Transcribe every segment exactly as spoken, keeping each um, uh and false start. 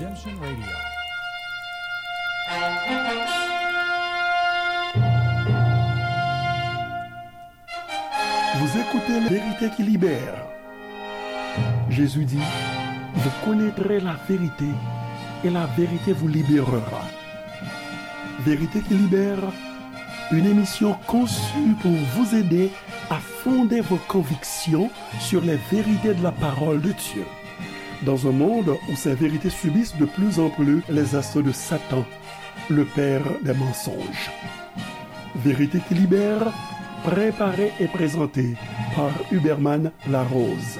Redemption Radio. Vous écoutez la vérité qui libère. Jésus dit, vous connaîtrez la vérité et la vérité vous libérera. Vérité qui libère, une émission conçue pour vous aider à fonder vos convictions sur les vérités de la parole de Dieu. Dans un monde où ces vérités subissent de plus en plus les assauts de Satan, le père des mensonges. Vérité qui libère, préparée et présentée par Huberman Larose.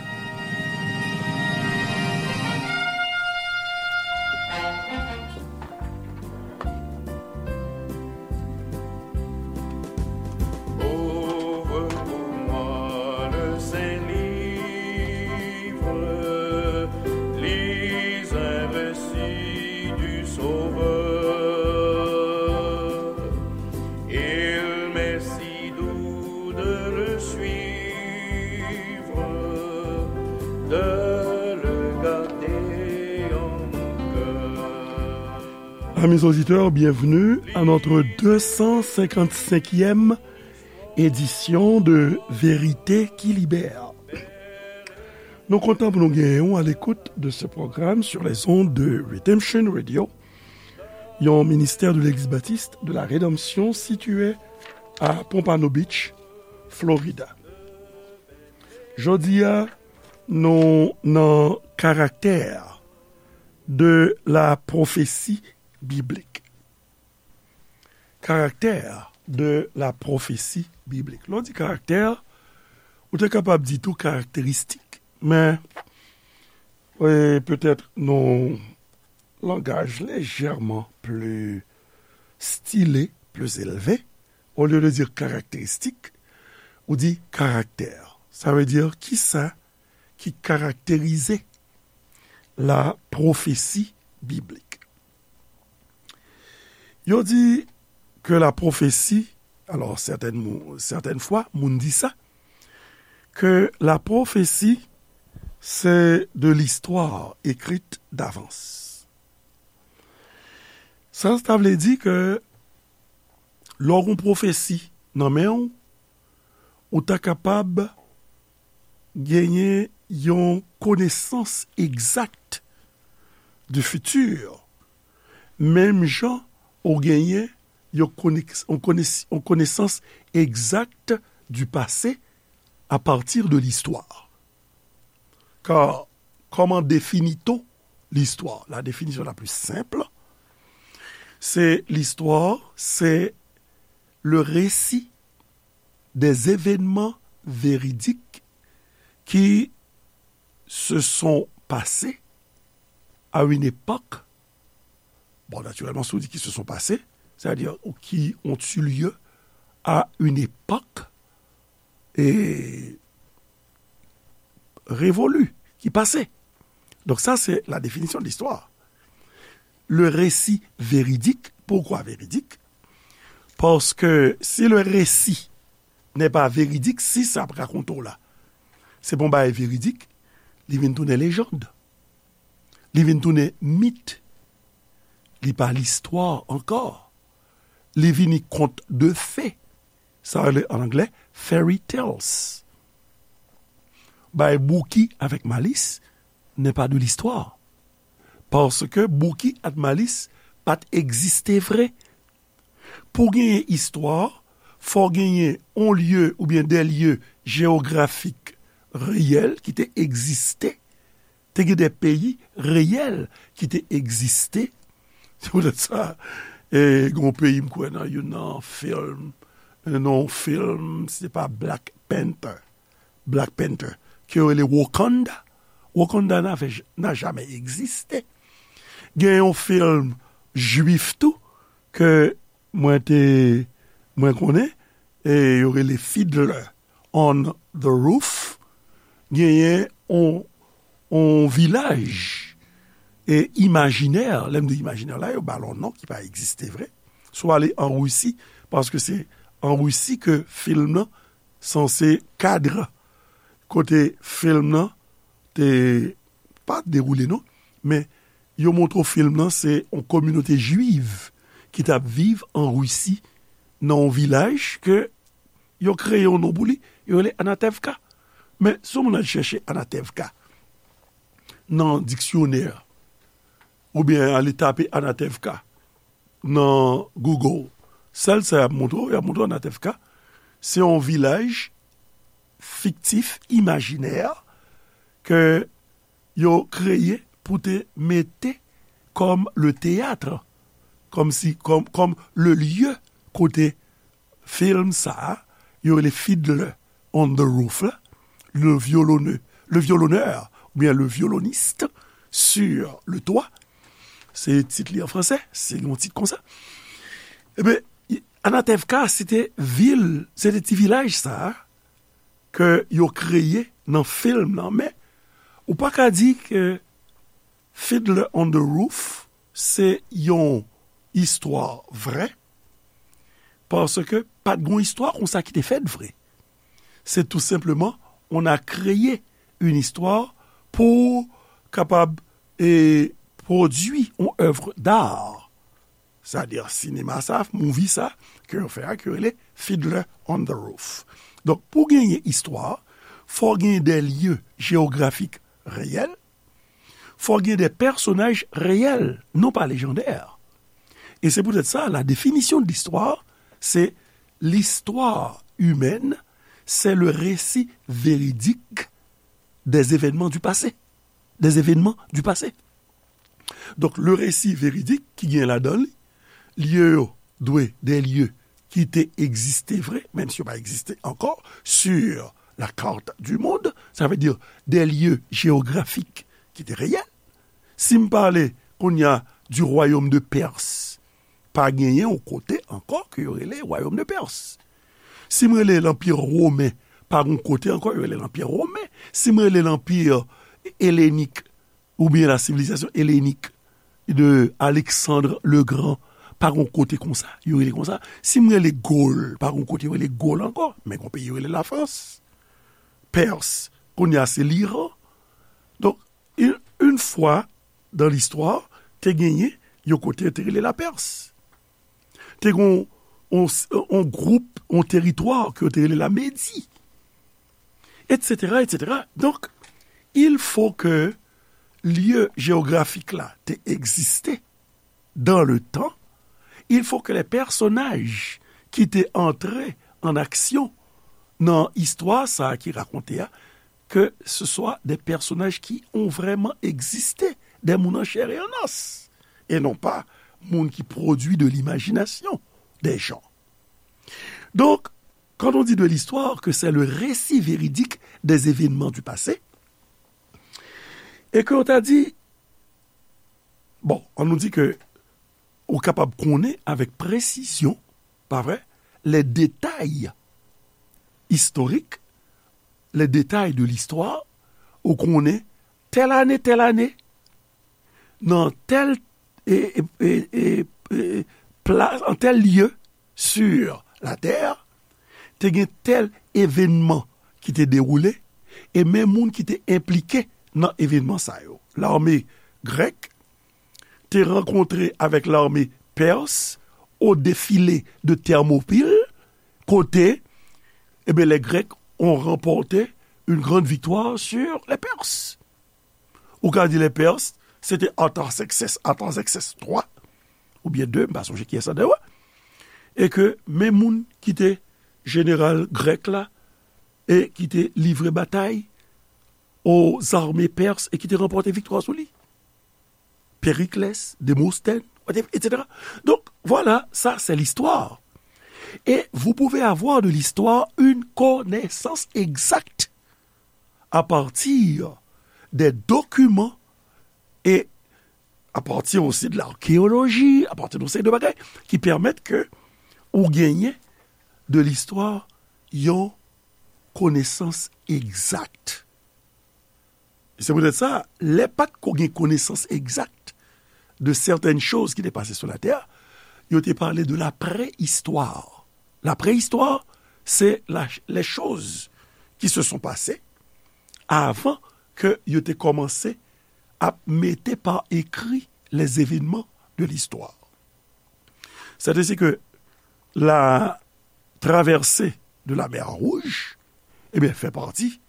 Ouvre pour moi le Saint-Livre, lis un récit du Sauveur. Il m'est si doux de le suivre, de le garder en mon cœur. Amis auditeurs, bienvenue à notre deux cent cinquante-cinquième édition de Vérité qui Libère. Nou kontan pou nou genyen w à l'écoute de ce programme sur les ondes de Redemption Radio, yon ministère de l'Église baptiste de la Rédemption situé à Pompano Beach, Florida. Jodi a, nou nan karaktè de la prophétie biblique. Karaktè de la prophétie biblique. Lè w di karaktè, ou te kapab di tou karakteristik. Men, e, petèt nan yon langaj lejèman pli stile, pli elve, olye de di karakteristik, ou di karaktè. Sa vle di kisa ki karakterize la prophétie biblique. Yo di ke la prophétie, alò, sètèn mou-, sètèn fwa, moun di sa, ke la prophétie, c'est de l'histoire écrite d'avance. Sa, sa vle di ke lè w gen yon pwofesi nan men w, ou ta kapab genyen yon konesans egzak du futur, menm jan ou genyen yon konek-, yon kones-, yon konesans egzak du passé à partir de l'histoire. Car comment définit-on l'histoire? La définition la plus simple, c'est l'histoire, c'est le récit des événements véridiques qui se sont passés à une époque. Bon, naturellement, si on dit qui se sont passés, c'est-à-dire ou qui ont eu lieu à une époque et révolue, qui passait. Donc ça, c'est la définition de l'histoire. Le récit véridique, pourquoi véridique? Parce que si le récit n'est pas véridique, si sa ap rakonte w la, se pa yon bagay veridik, li vin tounen lejand. Li vin tounen mit. Li pa listwa ankò. Li vini kont de fe. Sa rele an anglè fairy tales. Bay Bouki avèk Malis n'est pas de l'histoire. Paske Bouki ak Malis pa t egziste vre. Pou genyen istwa, fò genyen on lye oubyen de lye jewografik reyèl ki te egziste. Te gen de peyi reyèl ki te egziste. Se poutèt sa, e, gen yon peyi m kwè nan youn nan fim, nan yon fim, se pa Black Panther. Black Panther, ke yo rele Wakanda. Wakanda n'a, n'a jamais existé. Gen yon fim jwif tou, ke mwen te, mwen konnen, e yo rele Fiddler on the Roof. Genyen on, on vilaj, e, imajinè, lè m di imajinè la, yo ba l on non ki pa egziste vre. Si w ale an Risi, paske se an Risi ke fim nan sanse kadre kote fim nan te, pa dewoule non, men yo montre w fim nan, se yon kominote jwiv ki t ap viv an Risi, nan yon vilaj ke yo kreye yon non pou li, yo rele Anatevka. Men, si yon moun al chèche Anatevka nan diksyonè, oubyen ale tape Anatevka nan Google, sèl sa y ap montre w, y ap montre w Anatevka, se yon vilaj fiktif, imajinè, ke yo kreye pou te mete kòm le théâtre, kòm si, kòm, kòm le lieu kote fim sa a, yo rele Fiddler on the Roof la, le violonneux, le violonneur, oubyen le violoniste sur le toit. Se tit li an fransè, se yon tit konsa. Ebyen, Anatevka, se te vil, se te ti vilaj sa a, ke yo kreye nan fim nan, men ou pa ka di ke Fiddler on the Roof se yon istwa vrè, paske pa t gon istwa konsa ki te fèt vre. Se tou senpleman, on a créé une histoire pou kapab, e, pwodui yon œuvre d'art. Sètadi, sinema sa, movie sa, ke yo fè a, ki rele Fiddler on the Roof. Donk, pou genyen istwa, fò genyen de lye jewografik reyèl, fò genyen de pèsonaj reyèl, non pa lejandè. E se poutèt sa, la définition de l'histoire, c'est l'histoire humaine, c'est le récit véridique des événements du passé. Des événements du passé. Donk, le récit véridique ki gen ladan li, lye yo dwe de lye ki te egziste vre, menm si yo pa egziste ankò, sur la carte du monde, sa vle di de lye jewografik ki te reyèl. Si m pale kounye a du royaume de Perse, pa genyen yon kote ankò ke yo rele royaume de Perse. Si m rele lanpi women, pa gon kote ankò yo rele lanpi women. Si m rele lanpi elenik, oubyen la civilisation hellénique de Alexandre le Grand, pa gon kote konsa, yo rele konsa. Si m rele Gol, pa gon kote yo rele Gol ankò, men gon peyi yo rele Lafrans. Pèrs, kounye a se Liran. Donk, une, une fois dans l'histoire, te genyen yon kote yo te rele Lapèrs. Te gon yon, yon gwoup, yon teritwa ke yo te rele Lamedi, et cetera, et cetera. Donk, il faut que lye jewografik la te egziste dans le temps, il faut que les personnages ki te antre en action nan istwa sa a ki rakonte a, que ce soit des personnages qui ont vraiment existé, des moun an chair et en os, et non pas moun ki pwodui de l'imagination des gens. Donc, quand on dit de l'histoire, que c'est le récit véridique des événements du passé, et que on t'a dit, bon, on nous dit que ou kapab konnen avèk presizyon, pa vre, les détails historiques, les détails de l'histoire, ou konnen tèl ane, tèl ane, nan tèl, e, e, e, e, e, plas, an tèl lye sur la tè, te gen tèl evènman ki te dewoule, e men moun ki te enplike nan evènman sa yo. Lame grèk te rankontre avèk lame pèrs au défilé de Thermopyles, kote, e ben, les Grecs ont remporté une grande victoire sur les Perses. Ou ka di les Perses, se te Artaxerxès, Artaxerxès twa, oubyen de, m pa sonje kiyès la dayè, e ke men moun ki te jeneral grèk la, e ki te livre batay aux armées perses e ki te ranpòte viktwa sou li. Périclès, Démosthène, et cetera. Donc, voilà, ça, c'est l'histoire. Et vous pouvez avoir de l'histoire une connaissance exacte à partir des documents et à partir aussi de l'archéologie, à partir de ces deux bagages qui permettent que ou gagner de l'histoire, yon konesans egzak. E se poutèt sa, lè pa t ko gen konesans egzak de certaines choses ki te pase sou latè, yo te pale de la préhistoire. La préhistoire, c'est la, les choses qui se sont passées avant que yo te kòmanse ap mete pa ekri les événements de l'histoire. C'est ainsi que la traversée de la mer Rouge, eh bien, fait partie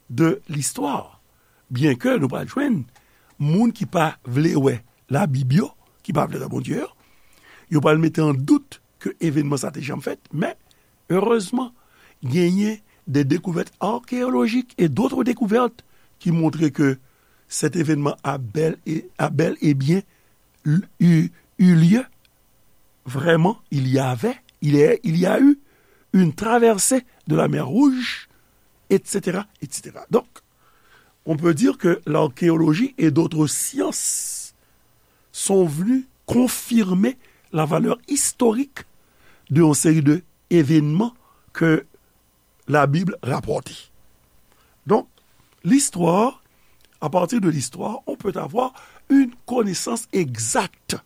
de l'histoire. Byen ke nou pral jwenn moun ki pa vle wè Labib yo, ki pa vle wè Bondye yo, yo pral mete an dout ke evènman sa te janm fèt, men erezman, genyen de découvertes archéologiques et d'autres découvertes qui montrent que cet événement a bel et, a bel et bien eu, eu lieu. Vraiment, il y avait, il y a, il y a eu une traversée de la mer Rouge, et cetera, et cetera. Donc, on peut dire que l'archéologie et d'autres sciences sont venues confirmer la valeur historique d'une série d'événements que la Bible rapporte. Donc, l'histoire, à partir de l'histoire, on peut avoir une connaissance exacte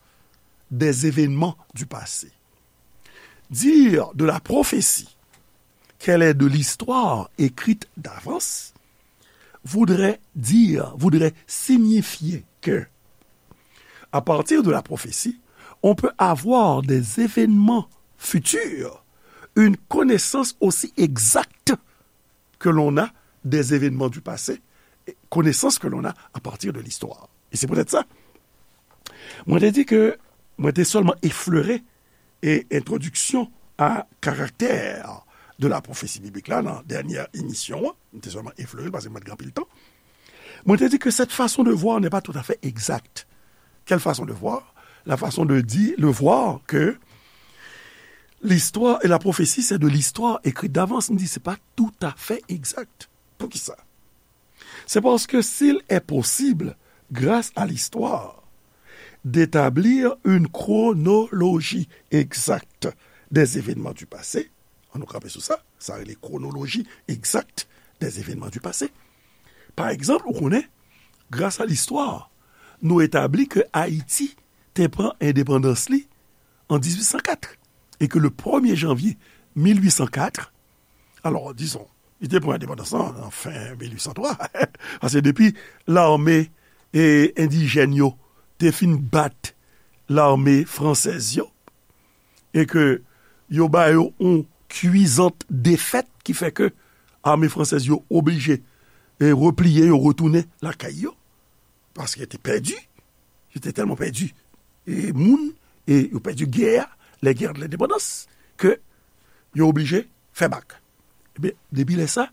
des événements du passé. Dire de la prophétie qu'elle est de l'histoire écrite d'avance voudrait dire, voudrait signifier que, à partir de la prophétie, on peut avoir des événements futurs, une connaissance aussi exacte que l'on a des événements du passé, connaissance que l'on a à partir de l'histoire. Et c'est peut-être ça. Mwen te di ke mwen te sèlman eflere e entwodiksyon a karaktè de la pwofesi biblik la nan dènyè emisyon an. Mwen te sèlman eflere l paske mwen te gen anpil tan. Mwen te di ke cette façon de voir n'est pas tout à fait exacte. Quelle façon de voir? La façon de dire, de voir que l'histoire et la prophétie, c'est de l'histoire écrite d'avance. M di, se pa toutafè egzak. Poukisa? C'est parce que s'il est possible, grâce à l'histoire, d'établir une chronologie exacte des événements du passé, an nou kanpe sou sa, sa rele chronologie exacte des événements du passé. Pa egzanp, ou konnen, grâce à l'histoire, nou etabli ke Ayiti te pran endepandans li an dizuit san kat, e ke le premye janvye mil uit san kat, alò, dizon, li te pran endepandans lan nan fen mil uit san twa, paske depi lame, e, endijèn yo te fin bat lame fransèz yo, e ke yo ba yo yon kwizant defèt ki fè ke ame fransèz yo oblije, e, repliye, yo retounen lakay yo, paske yo te pèdi, yo te tèlman pèdi, e, moun, e yo pèdi gè a, les guerres de l'indépendance, ke yo oblije fè bak. Ebyen, depi lè sa,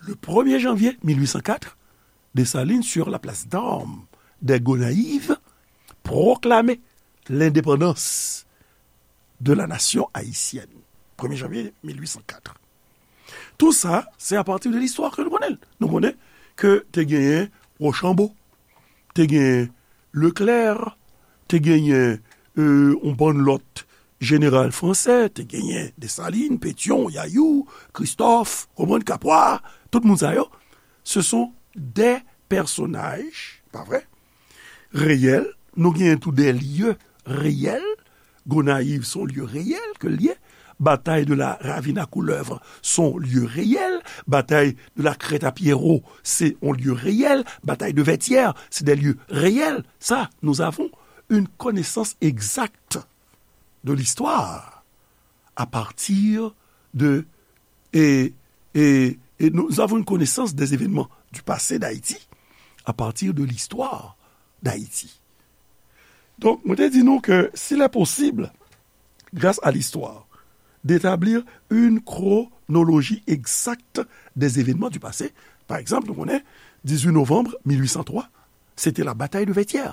le premye janvye mil uit san kat, Dessalines, sur la place d'armes des Gonayives, pwoklame lendepandans de la nation haïtienne. Premye janvye mil uit san kat. Tout sa, se apati de listwa ke nou konnen. Nou konnen ke te genyen Rochambeau, te genyen Leclerc, te genyen, e, yon bann lòt jeneral fransè, te genyen Dessalines, Pétion, Yayou, Christophe, konprann, Capois, tout moun sa yo, ce sont des personnages, pa vre? Reyèl, nou genyen tou des lieux réels, Gonayiv se yon lye reyèl ke l ye. Batay de la Ravine à Couleuvre se yon lye reyèl. Batay de la Crête à Pierrot se yon lye reyèl. Batay de Vertières, c'est des lieux réels. Ça, nous avons une connaissance exacte de l'histoire à partir de, et, et, et nous avons une connaissance des événements du passé d'Haïti à partir de l'histoire d'Haïti. Donk, mwen te di nou ke s'il est possible, grâce à l'histoire, d'établir une chronologie exacte des événements du passé, pa egzanp, nou konnen, dizuit novanm mil uit san twa, se te la batay de Vètyè.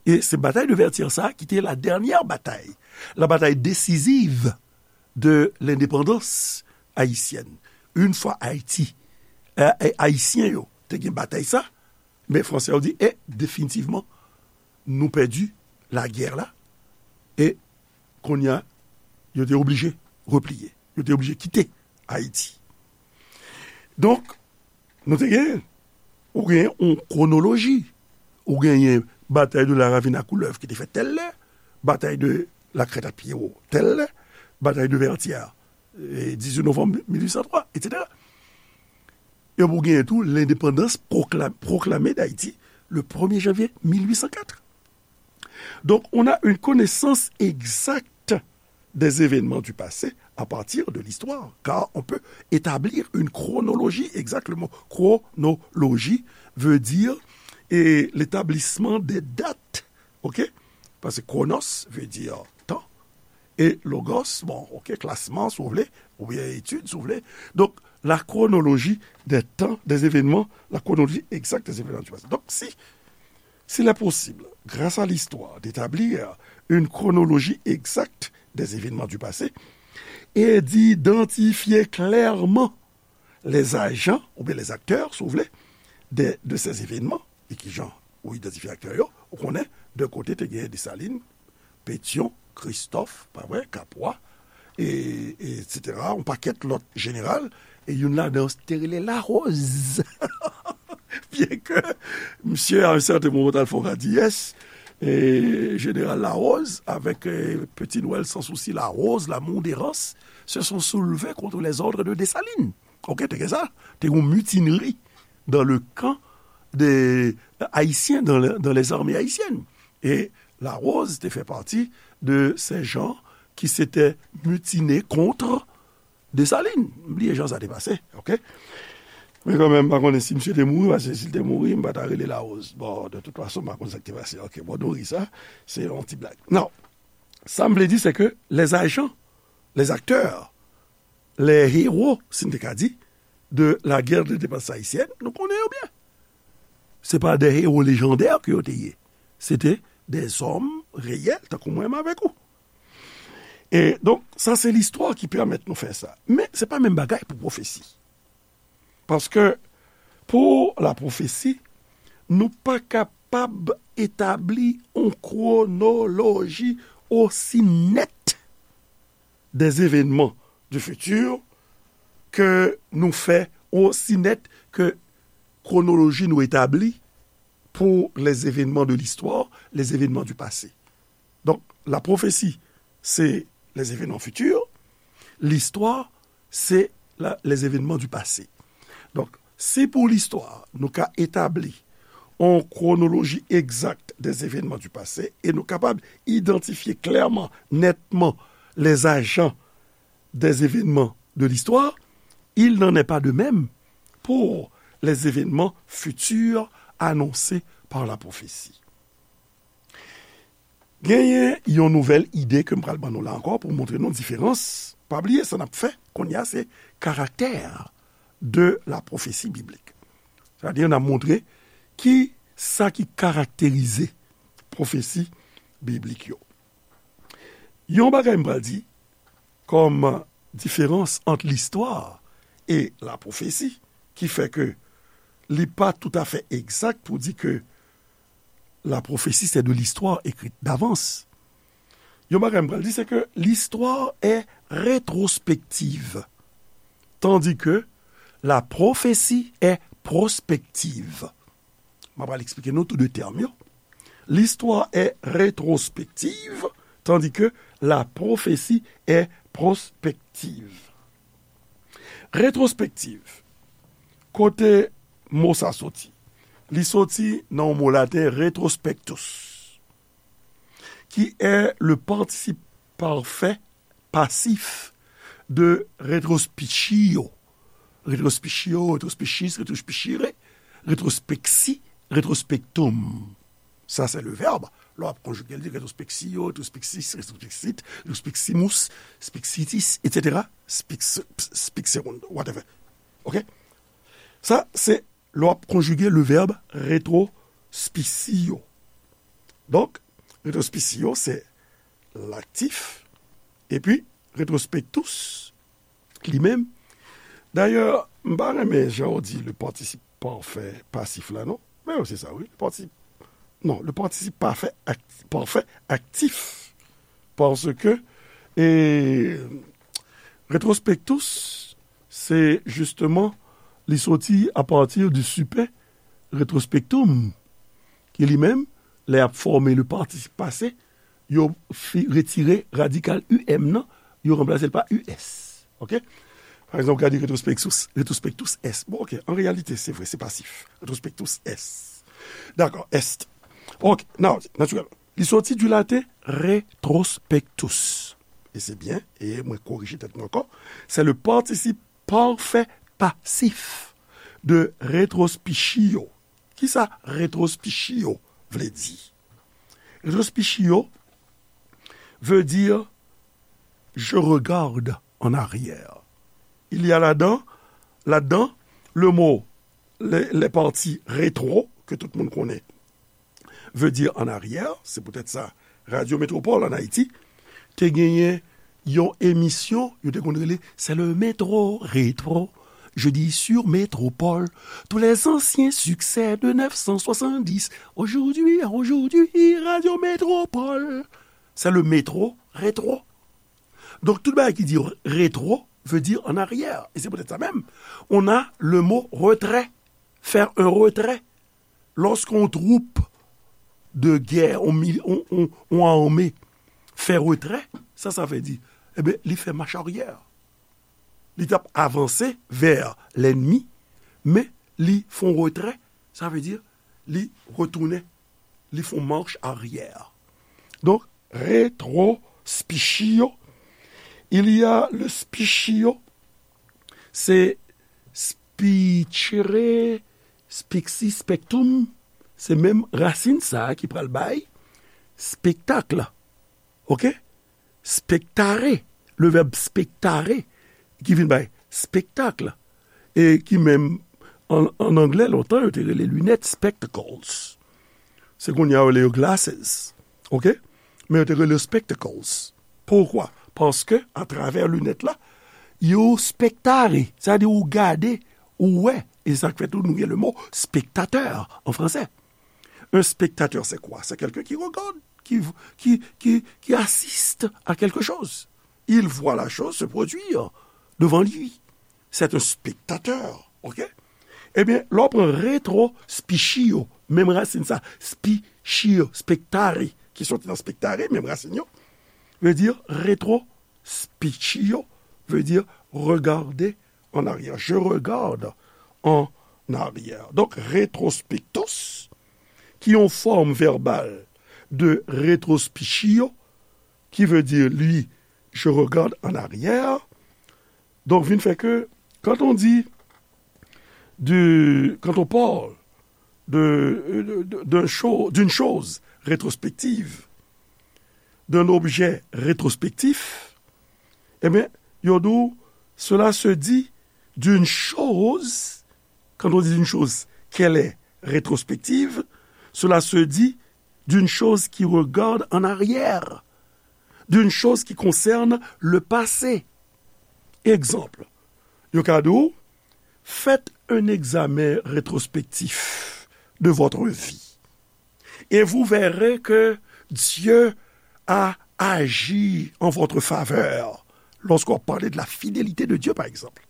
E se batay de Vètyè sa ki te la dènyè batay, la batay desiziv de lendepandans ayisyèn. Yon fwa Ayiti, e, e, Ayisyen yo te gen batay sa, men Fransè yo di, e, definitivman, nou pèdi lagè la, e kounye a, yo te oblije repliye, yo te oblije kite Ayiti. Donk, nou te gen, ou gen yon kwonoloji, ou genyen batay de la Ravine à Couleuvre ki te fèt tèl lè, batay de la Crête à Pierrot tèl lè, batay de Vertières, e, dizuit novanm mil uit san twa, etsetera. E pou genyen tou lendepandans pwokla-, pwoklame d'Ayiti le premier janvier mille huit cent quatre. Donc, on a une connaissance exacte des événements du passé à partir de l'histoire, car on peut établir une chronologie, exactement. Chronologie veut dire et l'établissement des dates, ok? Parce que chronos veut dire temps, et logos, bon, ok, classement, si vous voulez, ou bien étude, si vous voulez. Donc, la chronologie des temps, des événements, la chronologie exacte des événements du passé. Donc, si s'il est possible, grâce à l'histoire, d'établir une chronologie exacte des événements du passé et d'identifier clairement les agents, ou bien les acteurs, si vous voulez, de, de ces événements, e ki jan ou idantifye aktè yo, ou konnen de kote te gen Desalin, Petyon, Kristòf, pa vre, Kapwa, e, etsetera, yon pakèt lòt jeneral, e youn ladan yo te rele Larose. Byen ke misye, à un certain moment, t al fè yon radiyès, e jeneral Larose, avec euh, Petit Noël sans souci, Larose, l'amour d'Errance, se sont soulevés contre les ordres de Dessalines. Ok, te gen sa, te gen yon mutinerie dans le camp des Haïtiens, dans, le- dans les armées haïtiennes. Et Larose te fait partie de ces gens qui s'étaient mutinés contre Dessalines. M bliye jan sa te pase, ok? Men kanmenm, m pa konnen si misye te mouri, paske si l te mouri, m pa ta rele Larose. Bon, de toute façon, m pa konn sa ki te pase. Ok, bon, nou ri sa, se yon ti blag. Non, sa m vle di, se ke les agents, les acteurs, les héros, si n te ka di, de la guerre d'indépendance haïtienne, nou konnen yo byen. Se pa de héros légendaires ke yo te ye. Se te des hommes réels, tankou mwen menm avèk ou. E donk, sa se listwa ki pèmèt nou fè sa. Men se pa menm bagay pou pwofesi. Paske pou la pwofesi, nou pa kapab etabli yon kwonoloji osi nèt des événements du futur ke nou fè osi nèt ke kwonoloji nou etabli pour les événements de l'histoire, les événements du passé. Donc, la prophétie, c'est les événements futurs, l'histoire, c'est la- les événements du passé. Donk, si pou listwa, nou ka etabli yon kwonoloji egzak des événements du passé e nou kapab idantifye klèman, nètman, les agents des événements de l'histoire, il n'en est pas de même pour les événements futurs annoncés par la prophétie. Genyen yon nouvèl ide ke m pral ban nou la ankò pou montre nou diferans. Pa bliye sa n ap fè kounye a, se karaktè de la prophétie biblique. Sètadi n ap montre ki sa ki karakterize pwofesi biblik yo. Yon bagay m pral di kòm diferans ant listwa e la pwofesi, ki fè ke li pa toutafè egzak pou di ke la prophétie, c'est de l'histoire écrite d'avance. Yon bagay m pral di, se ke l'histoire est rétrospective, tandis que la prophétie est prospective. M ap al eksplike nou tou de tèm yo. L'histoire est rétrospective, tandis que la prophétie est prospective. Rétrospective, kote mo sa soti? Li soti nan yon mo laten, retrospectus, qui est le participe parfait passif de retrospicio. Retrospicio, retrospicis, retrospicire, retrospexi, retrospectum. Sa se le verbe. Lè w ap konjige l, di retrospexio, retrospexis, retrospexit, retrospeximos, spexitis, etsetera. Spex- spexerunt, whatever. Ok? Sa se lè w ap konjige le verbe retrospicio. Donk, retrospicio se laktif, epi retrospectus li menm. Dayè, m pa renmen jan w di le participe parfait passif la, non? Men se sa, wi. Le participe, non, le participe parfait, act- parfait actif. Paske, e, retrospectus, se justement, li soti a partir du super retrospectum, ki li menm, lè y ap fòme le participe passé, yo fi- retire radikal U M nan, yo ranplase l pa U S. Ok? Pa egzanp, w ka di retrospectus, retrospectus est. Bon, ok, an reyalite, se vre, se pasif. Retrospectus est. Dakò, est. Ok, nan, natirèlman. Li soti di laten retrospectus. E se byen, e mwen korije tèt mwen ankò. Se le partisip pafè pasif de retrospicio. Kisa retrospicio vle di? Retrospicio veut dire je regarde en arrière. Il y a là-dedans, là-dedans, le mot, les, les parties rétro, que tout le monde connaît, veut dire en arrière, c'est peut-être ça, Radio Métropole en Haïti, te genyen yon emisyon, yo te konn rele, c'est le métro rétro, jeudi sur Métropole, tous les anciens succès de neuf cent soixante-dix, aujourd'hui, aujourd'hui, Radio Métropole, c'est le métro rétro. Donc, tout bagay ki di rétro veut dire en arrière. Et c'est peut-être ça même. On a le mot retrait, faire un retrait. Lorsqu'on troupe de guerre, on, mil- on, on, on armée fait retrait, sa, sa vle di, e ben, li fè mach aryè. Li t ap avanse vè lènmi, men li fè yon retrè, sa vle di, li retounen, li fè yon mach aryè. Donk, retrospicio, il y a le spicio, se spicere, spixi, spectum, se menm rasin sa a ki pral bay spektak. Ok? Spectare, le verbe spectare, ki vin bay spektak, e ki menm an, an anglè, lontan, yo te rele linèt spectacles. Se kounye a yo rele yo glasses. Ok? Men yo te rele yo spectacles. Poukwa? Paske, atravè linèt la, yo spectare, sa vle di ou gade, ou wè. E sa k fè tou nou gen le mo spectateur en français. Un spectateur, c'est quoi? C'est quelqu'un qui regarde, qui, qui, qui, qui assiste à quelque chose. Il voit la chose se produire devant lui. C'est un spectateur, ok? Ebyen, lè w pran retrospicio, menm rasin sa, spicio, spectare, ki soti nan spectare, menm rasin yo, vle di retrospicio, vle di regarder en arrière. Je regarde en arrière. Donc, retrospectus, qui ont forme verbale de retrospicio, qui veut dire, lui, je regarde en arrière. Donc, vin fait que, quand on dit, du, quand on parle de, de, de, d'un cho-, d'une chose rétrospective, d'un objet rétrospectif, eh bien, yo di w, cela se dit d'une chose, quand on dit d'une chose qu'elle est rétrospective, cela se dit d'une chose qui regarde en arrière, d'une chose qui concerne le passé. Exemple, yo ka di w, faites un examen rétrospectif de votre vie. Et vous verrez que Dieu a agi en votre faveur. Lorsqu'on parle de la fidélité de Dieu, par exemple.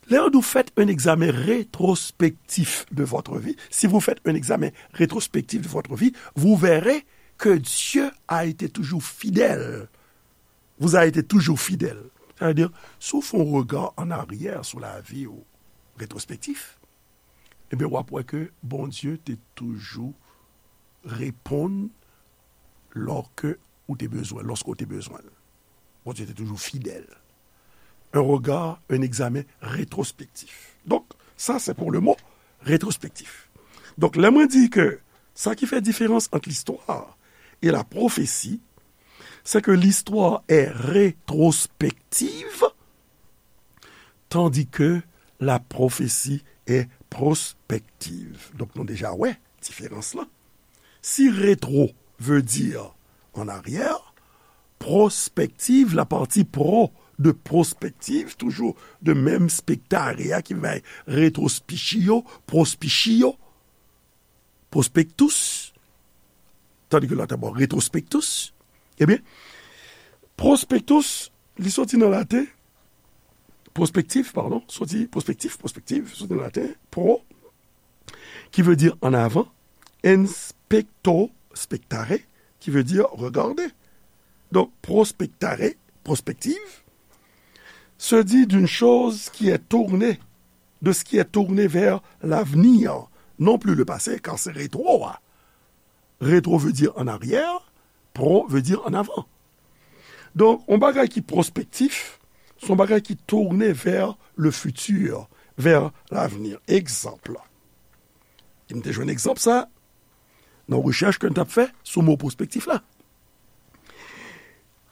Lè yo di w faites un examen rétrospectif de votre vie, si vous faites un examen rétrospectif de votre vie, vous verrez que Dieu a été toujours fidèle. Vous a été toujours fidèle. Sa vle di, si w fè yon rega an aryè sou lavi w, retrospektif, ebyen, w ap wè ke Bondye te toujou reponn lòske ou te bezwen, lòske w te bezwen l. Bondye te toujou fidèl. Un regard, un examen rétrospectif. Donc, ça, c'est pour le mot rétrospectif. Donk, lè mwen di ke sa ki fè diferans ant listwa e la pwofesi, c'est que l'histoire est rétrospective, tandis que la prophétie est prospective. Donk, nou deja wè diferans lan. Si rétro veut dire en arrière, prospective, la partie pro de prospective, toujours de menm spectare a ki bay retrospicio, prospicio, prospectus, tandis que l'autre, bon, retrospectus, ebyen, prospectus, li soti nan laten, prospectif, pardon, soti prospectif, prospective, soti nan laten, pro, qui veut dire en avant, inspecto, spectare, qui veut dire regarder. Donc, prospectare, prospective, se dit d'une chose qui est tournée, de ce qui est tourné vers l'avenir, non plus le passé, car c'est rétro, hein. Rétro veut dire en arrière, pro veut dire en avant. Donk, yon bagay ki pwospektif, se yon bagay ki tounen vers le futur, vers l'avenir. Egzanp, e m te jwenn egzanp sa nan rechèch ke m t ap fè sou mo pwospektif la.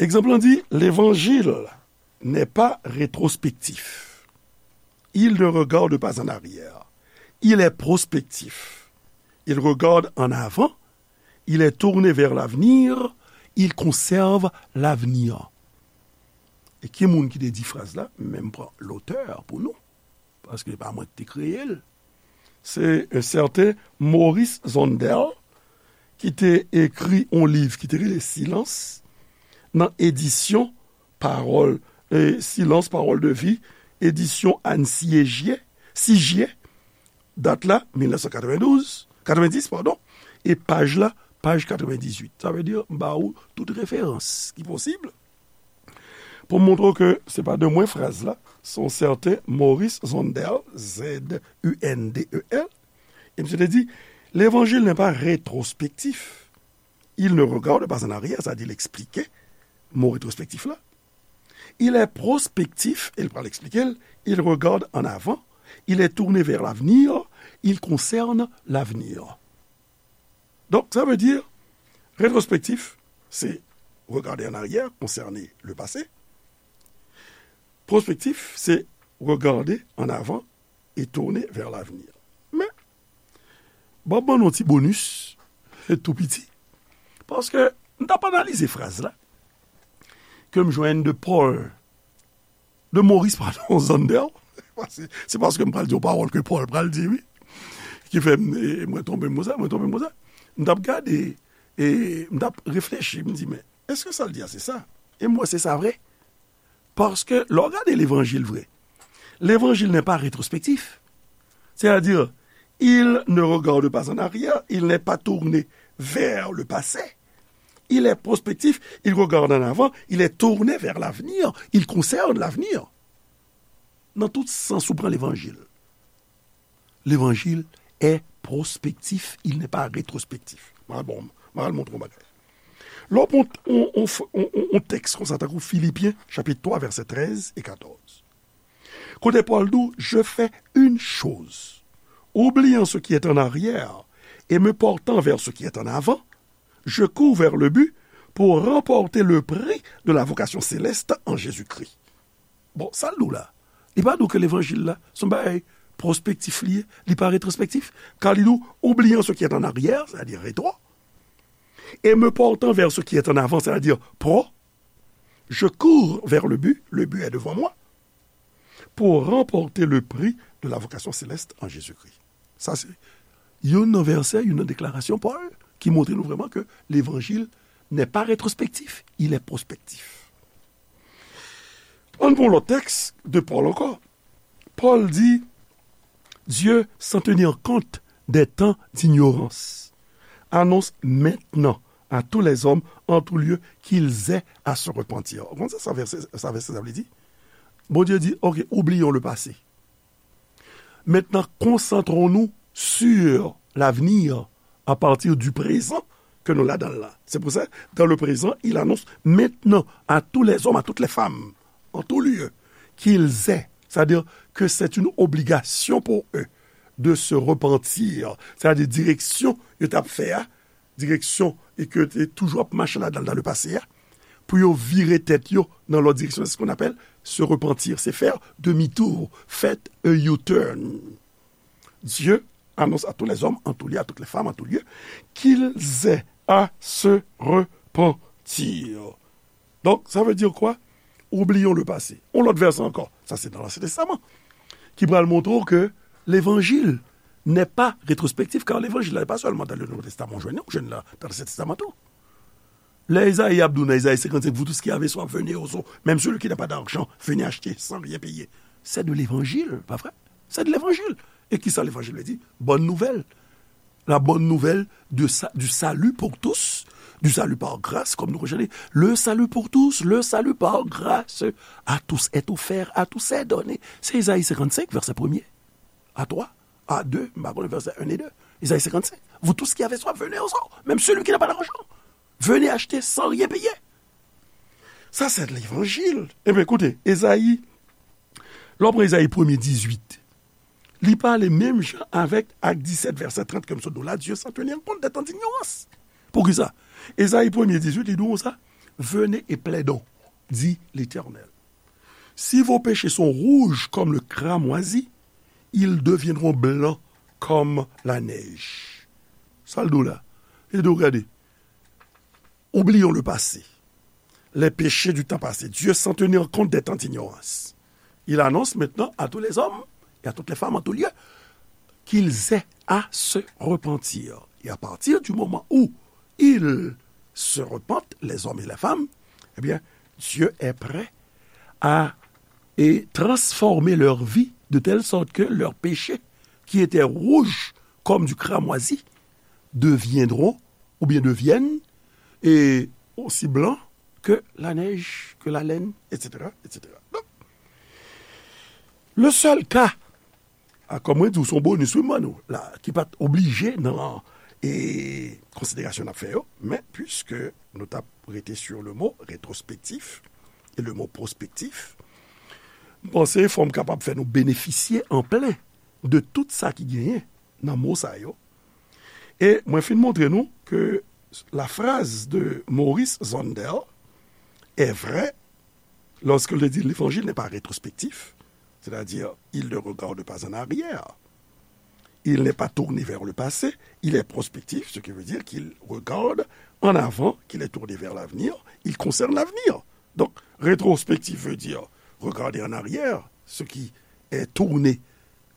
Egzanp lan di, l'évangile n'est pas rétrospectif. Il ne regarde pas en arrière. Il est prospectif. Il regarde en avant. Il est tourné vers l'avenir. Il conserve l'avenir. E ki moun ki te di fraz la? Men m pran lotè pou nou, paske se pa mwen ki te kreye l. Se yon sèten Maurice Zondel ki te ekri yon liv ki te rele Silence nan edisyon Pawòl, e, Silence, Parole de vie, edisyon Anne Sigier, Sigier, dat la, mil nèf san katrevendouz, katrevendis, padon, e paj la, paj katrevendizuit. Sa vle di, m ba ou tout referans ki posib pou m montre w ke se pa de mwen fraz la, se yon sèten Maurice Zondel, Z U N D E L, e misye te di, l'évangile n'est pas rétrospectif. Il ne regarde pas en arrière, sa di l eksplike mo retrospektif la. Il est prospectif, e l pral eksplike l, il regarde en avant, il est tourné vers l'avenir, il concerne l'avenir. Donk, sa vle di, retrospektif, se regarder en arrière, concerner le passé. Prospectif, se regarder en avant et tourner vers l'avenir. Men, bon, ban nou ti bonus, tou piti, paske m t ap analize fraz la, ke m jwenn de Paul, de Maurice, pardon, Zondel. Se, se paske m pral di yon pawòl ke Paul pral di, wi. Ki fè m, e, mwen tonbe m konsa, mwen tonbe m konsa. M t ap gade, e m t ap reflechi, m di, men, èske sa l di a se sa? E m wè se sa vre. Paske, lè w gade levanjil vre, l'évangile n'est pas rétrospectif. C'est-à-dire, il ne regarde pas en arrière, il n'est pas tourné vers le passé. Il est prospectif, il regarde en avant, il est tourné vers l'avenir, il concerne l'avenir. Nan tout sans ou pran levanjil. L'évangile est prospectif, il n'est pas rétrospectif. M al bon, m al montre w yon bagay. Lè w pran yon, yon, yon, yon, yon tèks konsa, tankou Filipyen, chapit twa, vèsè trèz e katòz. Kote Pòl di w, je fais une chose, oubliant ce qui est en arrière et me portant vers ce qui est en avant, je cours vers le but pour remporter le prix de la vocation céleste en Jésus-Christ. Bon, sa l di w la? Li pa di w ke levanjil la, se yon bagay pwospektif li ye, li pa retwospektif. Kan li di w, oubliant ce qui est en arrière, c'est-à-dire rétro, et me portant vers ce qui est en avant, c'est-à-dire pro, je cours vers le but, le but est devant moi, pour remporter le prix de la vocation céleste en Jésus-Christ. Sa se youn nan vèsè, youn nan deklarasyon Pòl ki montre nou vrèman ke levanjil n'est pas rétrospectif, il est prospectif. Ann pran lòt tèks de Pòl ankò. Pòl di, Dieu, sans tenir compte des temps d'ignorance, annonce maintenant à tous les hommes en tout lieu qu'ils aient à se repentir. Ou konn sa, sa vèsè, sa vèsè sa vle di? Bondye di, ok, oublions le passé. Maintenant, concentrons-nous sur l'avenir à partir du présent que nous ladan la. C'est pour ça, dans le présent, il annonce maintenant à tous les hommes, à toutes les femmes, en tout lieu, qu'ils aient, c'est-à-dire que c'est une obligation pour eux de se repentir, c'est-à-dire direksyon yo t ap fè a, direksyon e ke yo te toujou ap mache ladan l dans le passé a, pou yo vire tèt yo nan lòt direksyon. C'est ce qu'on appelle se repentir, c'est faire demi-tour, faire a U-turn. Dieu annonce à tous les hommes, en tout lieu, à toutes les femmes, en tout lieu, qu'ils aient à se repentir. Donc, ça veut dire quoi? Oublions le passé. On lòt vèsè ankò. Sa se nan Ansyen Testaman. Ki pral montre w ke levanjil n'est pas rétrospectif, car l'évangile n'est pas seulement dans le Nouveau Testament, ou jwenn, ou jwenn la dans l'Ancien Testament tou. Lè Ezayi ap di w nan Ezayi senkannsenk, vous tous qui avez soif, venez aux eaux. Même celui qui n'a pas d'argent, venez acheter sans rien payer. C'est de l'évangile, pas vrai? C'est de l'évangile. E kisa levanjil vle di? Bonne nouvelle. La bonne nouvelle de sa, du salut pour tous, du salut par grâce, comme nous recherchons. Le salut pour tous, le salut par grâce, à tous est offert, à tous est donné. C'est Ezayi senkannsenk, vèsè premye. À toi, à deux, m pa konnen vèsè un et deux. Ezayi senkannsenk. Vous tous qui avez soif, venez au sort. Même celui qui n'a pas d'argent, venez acheter sans rien payer. Ça, c'est l'évangile. Ebyen, koute, Ezayi, lè w pran Ezayi premye dizuit, li pale menm jan avèk Ak disèt, vèsè trant, ke m sot di w la, Dieu sans tenir compte des temps d'ignorance. Poukisa? Ezayi premye dizuit, li di w sa, venez et plaidons, dit l'Éternel. Si vos péchés sont rouges comme le cramoisi, ils deviendront blancs comme la neige. Sa l di w la? Li di w, gade, oublions le passé, les péchés du temps passé. Dieu sans tenir compte des temps d'ignorance. Il annonce maintenant à tous les hommes et à toutes les femmes en tout lieu qu'ils aient à se repentir. Et à partir du moment où ils se repentent, les hommes et les femmes, eh bien, Dieu est prêt à et transformer leur vie de telle sorte que leurs péchés, qui étaient rouges comme du cramoisi, deviendront ou bien deviennent et aussi blancs que la neige, que la laine, et cetera, et cetera. Donc, le seul cas, a, kòm mwen di w, se yon bonis wi m ban nou la, ki pa t oblije nan e, konsiderasyon n ap fè yo, men puiske nou t ap rete sur le mot rétrospectif et le mot prospectif, m panse fò m kapab fè nou benefisye an plen de tout sa ki genyen nan mo sa yo. E mwen fin montre nou ke la phrase de Maurice Zondel est vraie lorsqu'il dit l'évangile n'est pas rétrospectif, c'est-à-dire il ne regarde pas en arrière, il n'est pas tourné vers le passé, il est prospectif, ce qui veut dire qu'il regarde en avant, qu'il est tourné vers l'avenir, il concerne l'avenir. Donc, rétrospectif veut dire regarder en arrière, ce qui est tourné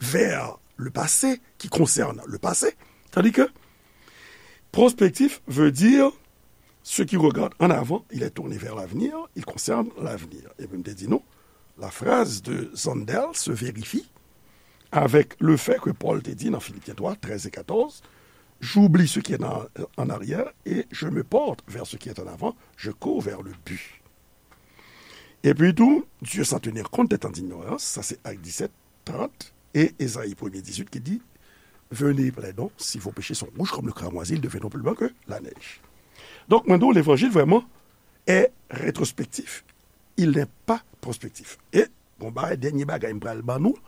vers le passé, qui concerne le passé, tandis que prospectif veut dire ce qui regarde en avant, il est tourné vers l'avenir, il concerne l'avenir. Epi m te di nou, la phrase de Zondel se vérifie avec le fait que Paul te di dans Philippiens trois, treize et quatorze, j'oublie ce qui est en, en arrière et je me porte vers ce qui est en avant, je cours vers le but. Epi tou, Dieu sans tenir compte des temps d'ignorance, sa se Ak disèt, trant, e Ezayi premye dizuit ki di, venez, plaidons, si vos péchés sont rouges comme le cramoisi, ils deviendront plus blancs que la neige. Donk, mwen di w, levanjil vrèman est rétrospectif, il n'est pas prospectif. E, bon, bagay, dènye bagay m pral ban nou,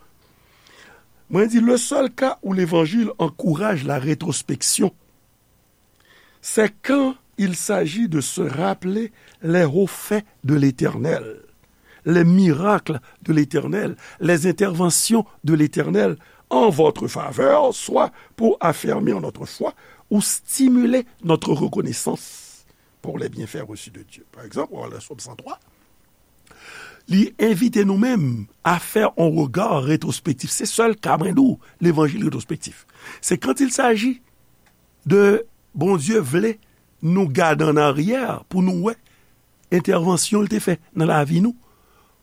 mwen di, le seul cas où l'évangile encourage la rétrospection, c'est quand il s'agit de se rappeler les hauts faits de l'Éternel, les miracles de l'Éternel, les interventions de l'Éternel en votre faveur, soit pour affermir notre foi ou stimuler notre reconnaissance pour les bienfaits reçus de Dieu. Par exemple, dans le psaume cent trois, li envite nou menm à faire un regard rétrospectif. Se sèl ka mwen di w, levanjil rétrospectif. C'est quand il s'agit de Bondye vle nou gade an aryè pou nou wè entèvansyon l te fè nan lavi nou,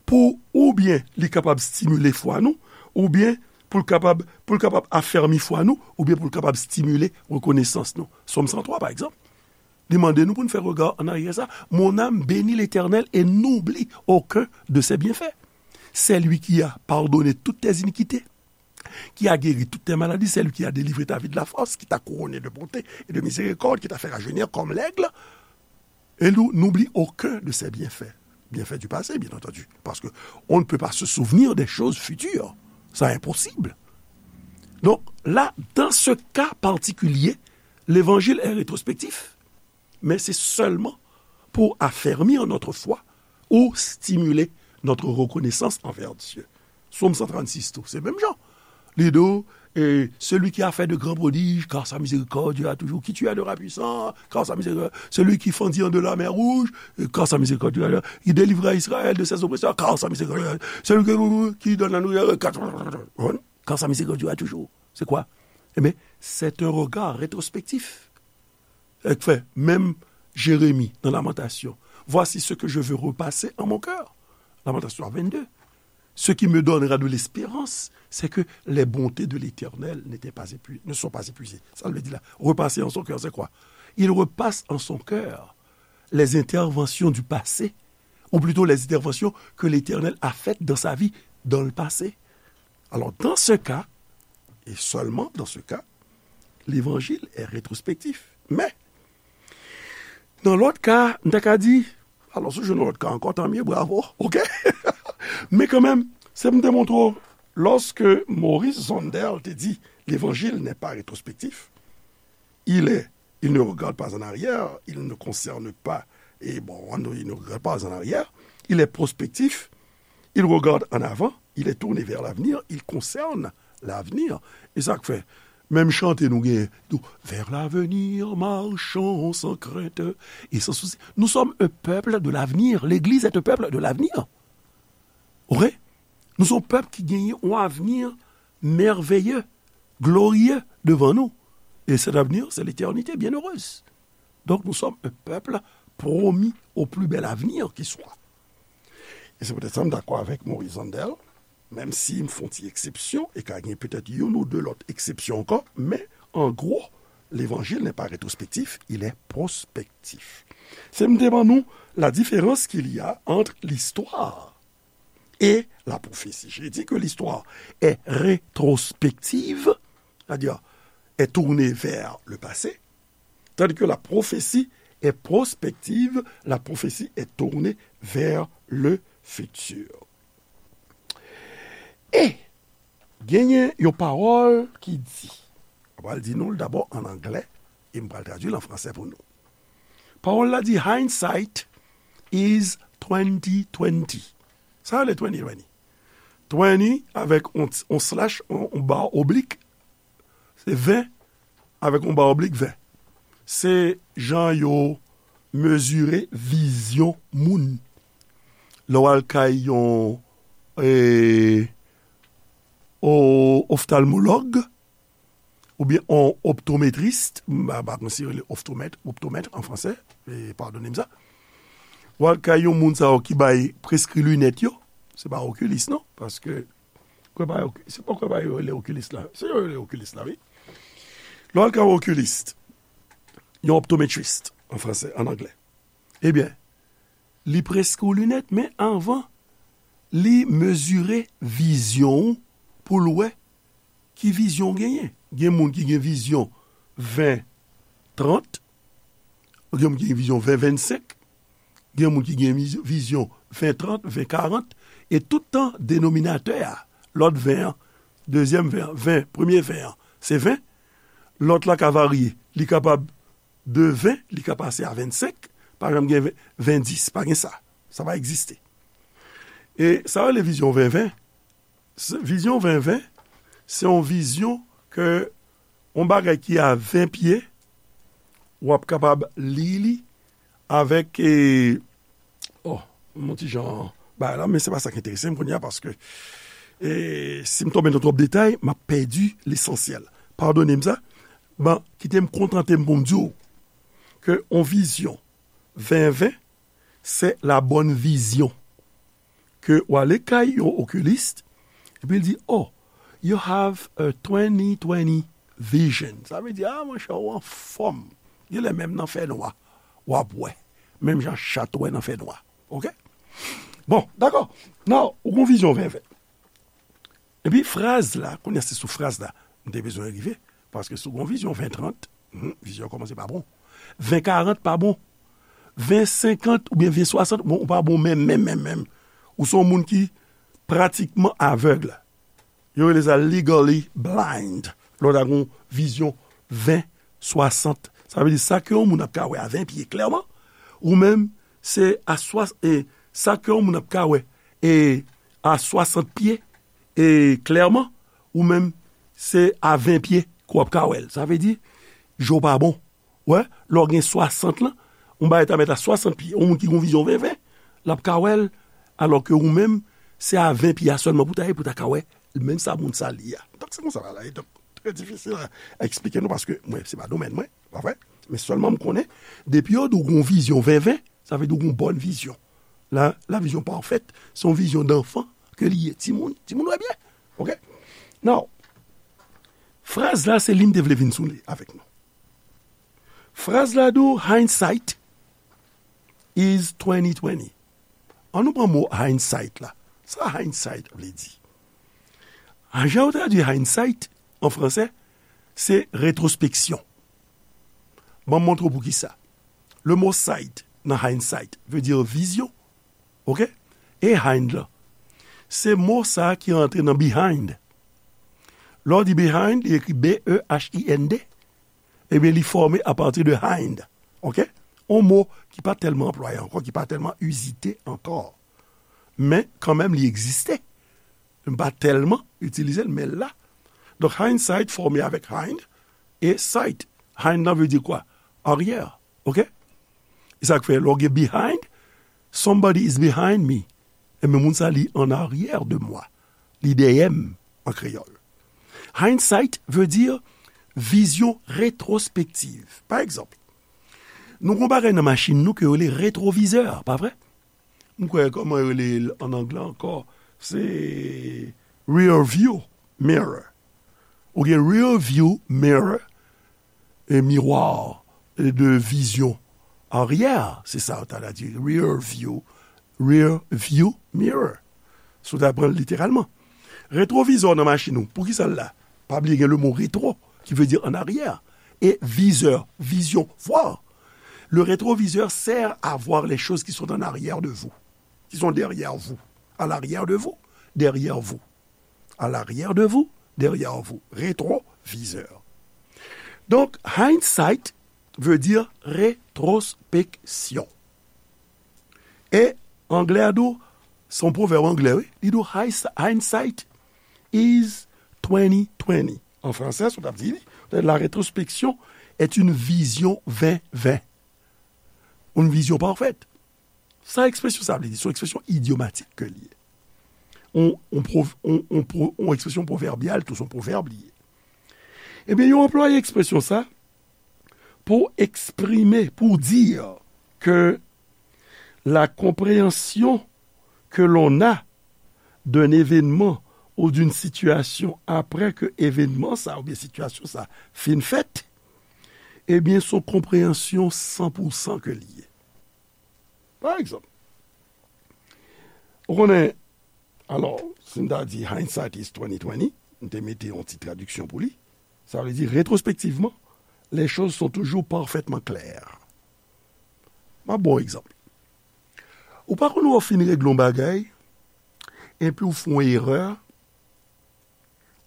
pou oubyen li kapab stimile fwa nou, oubyen pou l kapab, pou l kapab afèmi fwa nou, oubyen pou l kapab stimile rekonesans nou. Sòm san twa, pa egzanp, li mande nou pou n fè rega an aryè sa, mon âme bénit l'Éternel et n'oublie aucun de ses bienfaits. C'est lui qui a pardonné toutes tes iniquités, qui a guéri toutes tes maladies, c'est lui qui a délivré ta vie de la fosse, qui t'a couronné de bonté et de miséricorde, qui t'a fait rajeunir comme l'aigle. Et nous, n'oublie aucun de ses bienfaits. Bienfaits du passé, bien entendu. Parce que on ne peut pas se souvenir des choses futures. C'est impossible. Donc là, dans ce cas particulier, l'évangile est rétrospectif, mais c'est seulement pour affermir notre foi ou stimuler notre reconnaissance envers Dieu. Sòm san trannsis tou, se menm jan. Li di w, et celui qui a fait de grands prodiges, car sa miséricorde dure à toujours, qui tua de rats puissants, car sa miséricorde, celui qui fendit en deux la mer Rouge, car sa miséricorde dure à toujours, qui délivra Israël de ses oppresseurs, car sa miséricorde dure à toujours, celui qui, qui donne la nourriture, car, car sa miséricorde dure à toujours. C'est quoi? Eh bien, c'est un regard rétrospectif. Sa k fè, menm Jeremi nan Lamantasyon, voici ce que je veux repasser en mon cœur. Lamantasyon vennde. Ce qui me donnera de l'espérance, c'est que les bontés de l'Éternel n'étaient pas épuisées, ne sont pas épuisées. Sa l vle di la, repasser en son cœur, c'est quoi? Il repasse en son cœur les interventions du passé, ou plutôt les interventions que l'Éternel a faites dans sa vie dans le passé. Alors, dans ce cas, Et seulement dans ce cas, l'évangile est rétrospectif. Men, nan lòt ka, m ta ka di, alò, si w jwenn yon lòt ka ankò, tanmye, bravo, oke? Men kanmenm, se pou m te montre w, lorsque Maurice Zondel te di, l'évangile n'est pas rétrospectif, il est, il ne regarde pas en arrière, il ne concerne pas, et bon, il ne regarde pas en arrière, il est prospectif, il regarde en avant, il est tourné vers l'avenir, il concerne l'avenir. E sa k fè, menm chante nou genyen, tou, vers l'avenir, marchons sans crainte et sans souci. Nous sommes un peuple de l'avenir. L'église est un peuple de l'avenir. Oke? Nou se yon pèp ki genyen yon avni mèveye, gloriye devan nou. E cet avenir, c'est l'éternité bienheureuse. Donc, nous sommes un peuple promis au plus bel avenir qui soit. E se poutèt sa, m dakò avèk Maurice Zondel, menm si m fè yon ti eksepsyon, e ka gen petèt youn ou de lòt eksepsyon ankò, men, an gwo, l'évangile n'est pas rétrospectif, il est prospectif. Se m te ban nou la différence qu'il y a entre l'histoire et la prophétie. J'ai dit que l'histoire est rétrospective, c'est-à-dire est tournée vers le passé, tandis que la prophétie est prospective, la prophétie est tournée vers le futur. E genyen yon pawòl ki di, m pral di nou l dabò an anglè, e m pral tradui l an fransè pou nou. Pawòl la di, hindsight is twenty twenty. Sa rele twenty twenty. Twenty avèk on, on slash, on, on ba oblik, se ven, avèk on ba oblik ven. Se jan yo mezire vizyon moun. Lè w al kay yon, e, o, oftalmològ, oubyen on optometrist, m pa, pa konn si yo rele oftomèt, optomèt an fransè, e, padone m sa. W al kay yon moun sa yo ki bay preskri linèt yo, se pa okilis non, paske kwè pa, se pa kwè pa yo rele okilis la, se yo rele okilis la, wi. Lè w al kay yon okilis, yon optometrist an fransè, an anglè, ebyen, li preskri w linèt, men anvan, li mezire vizyon w pou l wè ki vizyon w genyen. Gen moun ki gen vizyon ven trant, gen moun ki gen vizyon ven vennsenk, gen moun ki gen viz-, vizyon ven trant, ven karant, e tout tan denominatè a, lòt ven an, dezyèm ven an, ven, premye ven an, se ven, lòt la ka varye, li kapab de ven, li ka pase a vennsenk, pa janm gen ven, ven dis, pa gen sa. Sa pa egziste. E sa yo rele vizyon ven ven. Se, vizyon ven ven, se yon vizyon ke yon bagay ki a ven pye, w ap kapab li li avèk, e, oh, yon ti jan bagay la, men se pa sa k enterese m kounye a, paske, e, si m tonbe nan twòp detay, m ap pèdi lesansyèl. Padone m sa, ban, kite m kontante m pou m di w ke yon vizyon ven ven, se la bonne vision. Ke w ale kay yon okilis, epi l di, oh, you have a twenty twenty vision. Sa vle di, ah, monchè, ou anfòm. Genlè menm nan fènwa, w ap wè. Menm jan chat wè nan fènwa. Oke? Bon, dakò. Now, ou gon vizyon ven ven. Epi fraz la, kounye a se sou fraz la, m te bezwen rive, paske si w gon vizyon ven trant, hmm, vizyon an kòmanse pa bon. Ven karant pa bon. Ven senkant oubyen ven swasant, bon, ou pa bon menm, menm, menm, menm. Ou se yon moun ki pratikman avèg. Yo rele sa legally blind. Lè w ta gon vizyon ven swasant. Sa vle di sa ke yon moun ap ka wè a ven pye klèman, ou menm, se a swa-, e, sa ke yon moun ap ka wè, e, a swasant pye, e, klèman, ou menm, se a ven pye ke w ap ka wè l. Sa vle di, je w pa bon. Wè, lè w gen swasant lan, yon bagay ta mèt a swasant pye. Yon moun ki gon vizyon ven ven, l ap ka wè l, alò ke ou menm, se a ven pye a sèlman pou ta ye, pou ta ka wè menm sa moun sa li a. Donk, se konsa bagay la ye. Donk, trè difisil a, a eksplike nou, paske mwen, se pa domèn mwen, pa vre? Men sèlman m konnen, depi yo di w gon vizyon ven ven, sa vle di w gon bòn vizyon. La, la vision parfaite, se yon vizyon danfan ke li ye. Timoun, timoun wè byen. Oke? Now, fraz la, se li m te vle vin sou li avèk nou. Fraz la di w, hindsight is twenty twenty. An nou pran mo hindsight la. Sa hindsight vle di? A, jan yo tradui hindsight, an fransè, se retwospeksyon. Ban m montre w poukisa. Le mo sight nan hindsight vle di vizyon. Oke? E hind lan? Se mo sa a ki antre nan behind. Lè w di behind, li ekri B E H I N D. Ebyen, li fòme apati de hind. Oke? On mo ki pa tèlman anplwaye ankò, ki pa tèlman izite ankò. Men, kanmenm, li egziste. M pa tèlman itilize l, men l la. Donk, hindsight fòme avèk hind e sight. Hind lan vle di kwa? Aryè. Oke? E sa k fè, lè w gen behind, somebody is behind me. Ebyen, moun sa, li en arrière de moi. Li dèyè m, an kreyòl. Hindsight vle di vizyon retwospektiv. Pa egzanp, nou gen yon bagay nan machin nou ke yo rele retwovizè, pa vre? M kwè, kòman yo rele l an anglè ankò? Se rear view mirror. Ou gen rear view mirror, e miwa de vizyon aryè, se sa yo ta di, rear view, rear view mirror. Si w ta pran l literalman. Retwovizè nan machin ou, poukisa l la? Pa bliye gen le mo retwo, ki vle di an aryè. E vizè, vizyon, voir. Le rétroviseur sert à voir les choses qui sont en arrière de vous, qui sont derrière vous, à l'arrière de vous, derrière vous, à l'arrière de vous, derrière vous. Rétroviseur. Donk, hindsight vle di retwospeksyon. E anglè a di w, se yon pwovèb anglè, wi. Li di w, "Hindsight is twenty twenty." An fransè, sa w t ap di, li, "La rétrospection est une vision vingt vingt." Une vision parfaite. Sa ekspresyon sa vle di, se yon ekspresyon idyomatik ke li ye. On, on, prov, on, on, pro, on ekspresyon pwovèbyal, tou se yon pwovèb li ye. Ebyen, yo anplwaye ekspresyon sa pou eksprime, pour dire que la compréhension que l'on a d'un événement ou d'une situation après que événement sa oubyen sitiyasyon sa fin fèt, ebyen, se yon konpreyansyon san pou san ke li ye. Pa egzanp, ou konnen, alò, si m ta di hindsight is twenty twenty, m te mete yon ti tradiksyon pou li, sa vle di, rétrospectivement, les choses sont toujours parfaitement claires. M ap ba w egzanp. Ou pa konn wè w fin regle yon bagay, epi w fè yon erè,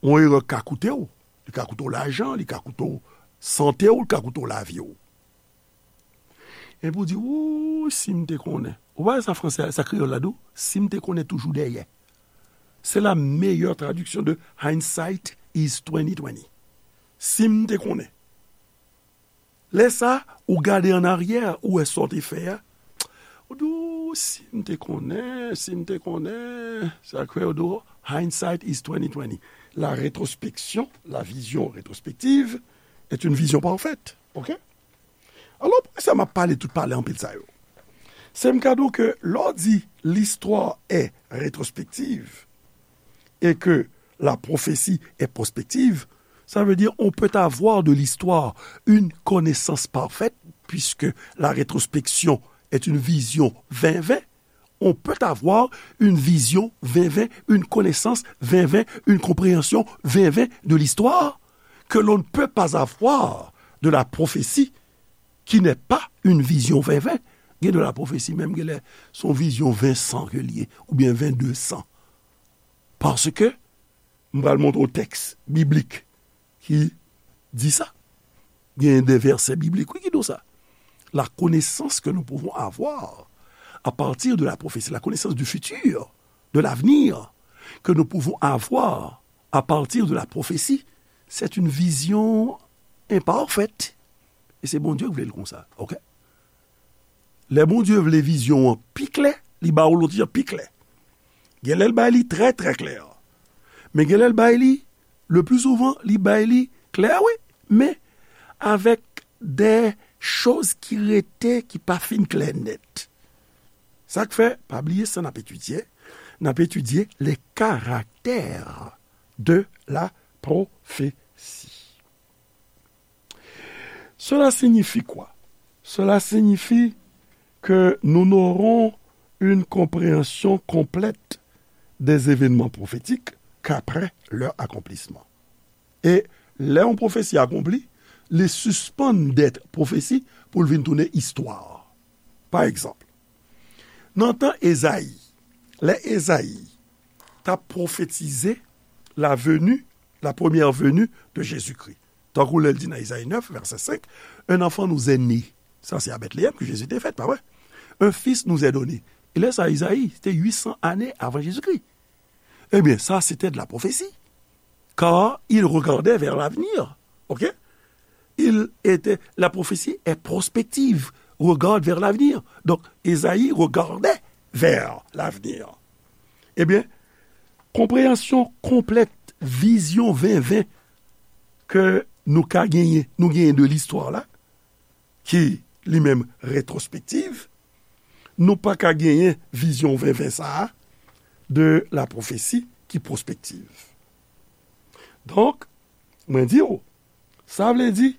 yon erè k ka koute w, li ka koute w lajan, li ka koute w sante w, li ka koute w lavi w. Epi w di, "Wou, si m te konnen." Ou pa wè sa fransè, sa kreyòl la di w, "Si m te konnen toujou dèyè." C'est la meilleure traduction de hindsight is twenty twenty. Si m te konnen. Lè sa, ou gade an aryè, ou wè sa w te fè a. Ou di, "Wou, si m te konnen, si m te konnen." Sa kreyòl di w, "Hindsight is twenty twenty." La rétrospection, la vision rétrospective, est une vision parfaite. Oke? Alò, poukisa m ap pale tout pale anpil sa yo? Se m ka di w ke lè w di l'histoire est rétrospective et que la prophétie est prospective, ça veut dire on peut avoir de l'histoire une connaissance parfaite, puisque la rétrospection est une vision vingt vingt, on peut avoir une vision vingt vingt, une connaissance vingt vingt, une compréhension vingt vingt de l'histoire que l'on ne peut pas avoir de la prophétie qui n'est pas une vision vingt vingt. Gen de la prophétie menm, gen lè se yon vizyon vingt san ke li ye, oubyen vingt deux san. Paske, m pral montre w tèks biblik ki di sa. Gen de vèsè biblik, wi, ki di w sa. La connaissance que nous pouvons avoir à partir de la prophétie, la connaissance du futur, de l'avenir, que nous pouvons avoir à partir de la prophétie, c'est une vision imparfaite. E se Bondye ki vle l konsa, oke? Lè Bondye vle vizyon an pi klè, li ba w l yon ti jan pi klè. Gen lè l bay li trè, trè klè. Men gen lè l bay li, le plus souvent, li bay li klè, wi, men avèk de choz ki rete, ki pa fin klè nèt. Sa k fè, pa bliye sa n ap etidye, n ap etidye les caractères de la prophétie. Cela signifie quoi? Cela signifie que nous n'aurons une compréhension complète des événements prophétiques qu'après leur accomplissement. E lè yon pwofesi akonpli, li sispann dèt pwofesi pou l vin tounen istwa. Pa egzanp, nan tan Ezayi, lè Ezayi t ap pwofetize la venue, la première venue de Jésus-Christ, tankou lè l di nan Ezayi nèf, vèsè senk, un enfant nous est né. Sa se a Bètleyèm ke Jezi te fèt, pa vre? Un fils nous est donné. E lè sa, Ezayi, se te uit san ane avan Jezikri. Ebyen, sa se te de la pwofesi. Car il regardait vers l'avenir. OK? Il était, la prophétie est prospective, regarde vers l'avenir. Donk, Ezayi regardait vers l'avenir. Ebyen, konpreyansyon konplèt vizyon ven ven ke nou ka genyen, nou genyen de listwa la, ki li menm retwospektiv, nou pa ka genyen vizyon ven ven sa a de la pwofesi ki pwospektiv. Donk, mwen di w, sa vle di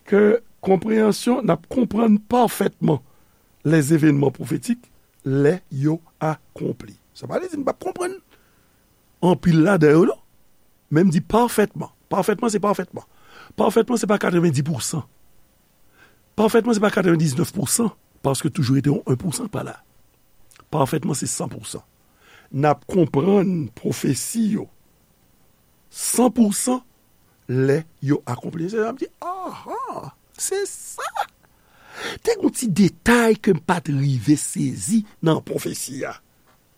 ke konpreyansyon, n ap konprann pafètman les événements prophétiques lè yo akonpli. Sa pa vle di n p ap konprann anpil ladan yo, non. Men m di pafètman. Pafètman, se pafètman. Pafètman, se pa katrevendi pousan. Pafètman, se pa katrevendiznèf pousan, paske toujou rete yon en pousan pa la. Pafètman, se san pousan. N ap konprann pwofesi yo san pousan lè yo akonpli. Se sa m di, aha, se sa! Te gen yon ti detay ke m pa t rive sezi nan pwofesi a.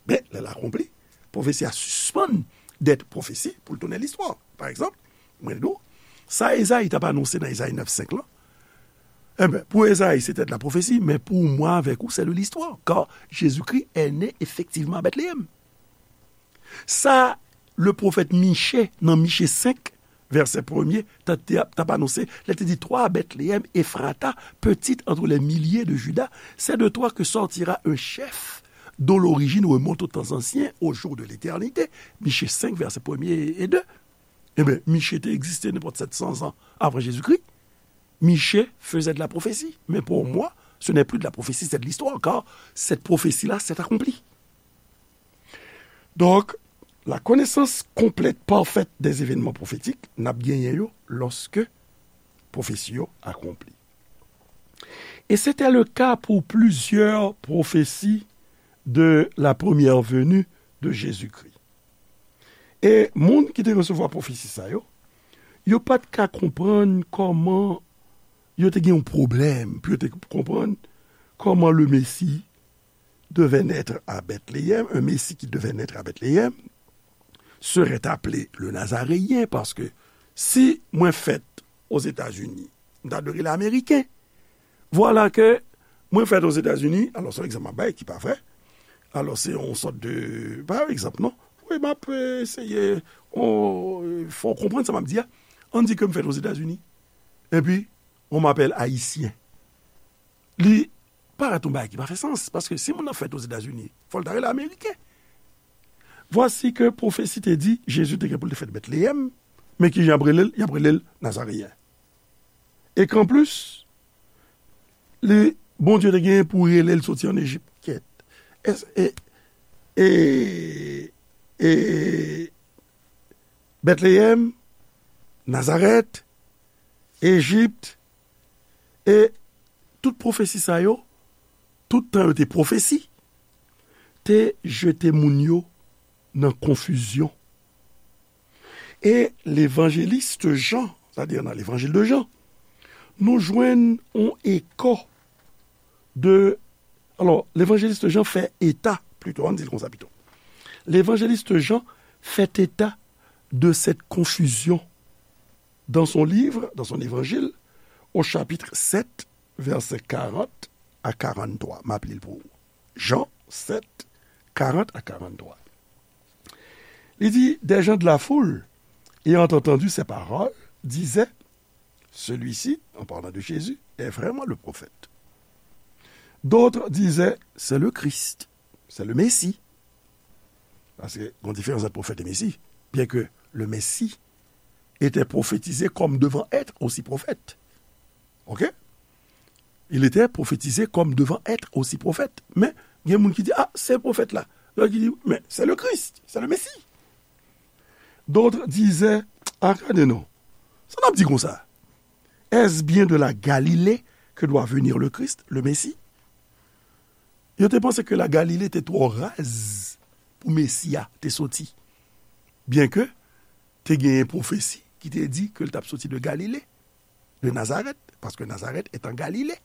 Men, lè l akonpli, pwofesi a sispann dèt pwofesi pou l tounen listwa. Pa egzanp, mwen di w, sa Ezayi t ap anonse nan Ezayi nèf senk lan, enben, pou Ezayi, se te de la pwofesi, men pou mwen avèk ou, c'est de l'histoire, car Jésus-Christ est né effectivement à Bethléem. Sa, le pwofèt Miche, nan Miche senk, vèsè premye, t ap, t ap anonse, lè te di, toi, Bethléem Ephrata, petite entre les milliers de Juda, c'est de toi que sortira un chef dont l'origine remonte aux temps anciens, aux jours de l'éternité. Miche senk, vèsè premye e de. Ebyen, Miche te egziste nenpòt sèt san zan avan Jezikri. Miche faisait de la prophétie. Mais pour moi, ce n'est plus de la prophétie, c'est de l'histoire, car cette prophétie-là s'est accomplie. Donk, la connaissance complète, parfaite des événements prophétiques, n ap genyen yo lòske pwofesi yo akonpli. Et c'était le cas pour plusieurs prophéties de la première venue de Jésus-Christ. E moun ki te resevwa pwofesi sa yo, yo pa t ka konprann kòman, yo te gen yon pwoblèm pou yo te konprann kòman le Messie devait naître à Bethléem, un Messie qui devait naître à Bethléem, serait appelé le Nazaréen, paske si mwen fèt Ozetazini, m ta dwe rele Ameriken. Vwala ke mwen fèt Ozetazini, alò se yon egzanp m ap bay ki pa vrè, alò se yon sòt de, pa yon egzanp non, wi, m ap eseye fè w konprann sa m ap di a. Ann di ke m fèt Ozetazini, epi on m'appelle Ayisyen. Li parèt yon bagay ki pa fè sans, paske si moun nan fèt Ozetazini, fò l ta rele Ameriken. Vwasi ke pwofesi te di Jezi te gen pou l te fèt Bètleyèm, men kijan y ap rele l? Y ap rele l Nazareyen. E ke anplis, li, Bondye te genyen pou rele l soti ann Ejip. Kèt. Èske, e, e, e, Bètleyèm, Nazarèt, Ejip, e tout pwofesi sa yo, tout tan yo te pwofesi, te jete moun yo nan konfizyon. E levanjelis Jan, sètadi nan levanjil de Jan, nou jwenn yon eko de, alò, levanjelis Jan fè eta, plito, ann di l konsa pito. Levanjelis Jan fè eta de cette confusion dans son livre, dans son évangile, au chapitre sept, versets quarante à quarante-trois. M ap li l pou ou. Jan sèt, karant a karant-twa. Li di, des gens de la foule, ayant entendu ces paroles, disaient, celui-ci, en parlant de Jésus, est vraiment le prophète. D'autres disaient, c'est le Christ, c'est le Messie. Paske, gon diferans ant pwofèt e Mesi. Bien que le Messie était prophétisé comme devant être aussi prophète. OK? Il était prophétisé comme devant être aussi prophète. Men, gen moun ki di, ah, se pwofèt la. Lòt ki di, men, c'est le Christ, c'est le Messie. D'autres disaient, ah, gade non. Sa n ap di konsa? Est-ce bien de la Galilée que doit venir le Christ, le Messie? Yo te panse ke la Galilée te twò raz pou Mesi a te soti. Byenke te genyen pwofesi ki te di ke l t ap soti de Galile, de Nazareth, parce que Nazareth est en Galilée.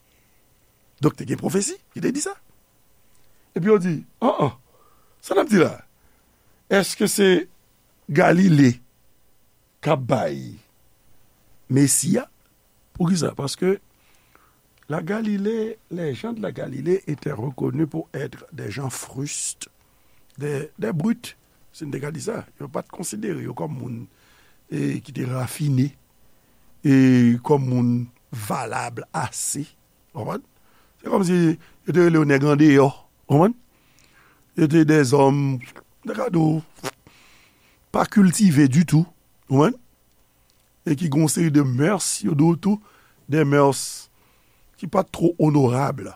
Donk, te gen pwofesi ki te di sa. Epi yo di, an an, sa n ap di la? Èske se Galile k ap bay Mesi a? Poukisa? Paske la Galilée, les gens de la Galilée étaient reconnus pour être des gens frustes, des, des brutes, si n te ka di sa. Yo pa t konsidere yo kòm moun e, ki te rafine, e kòm moun valab ase. Konprann? Se kòmsi yo te rele yo nèg andeyò. Konprann? Yo te dèzòm, de ka di w, pa kiltive ditou. Konprann? E ki gen yon seri de mœurs, yo di w tou, de mœurs ki pa t two onorab.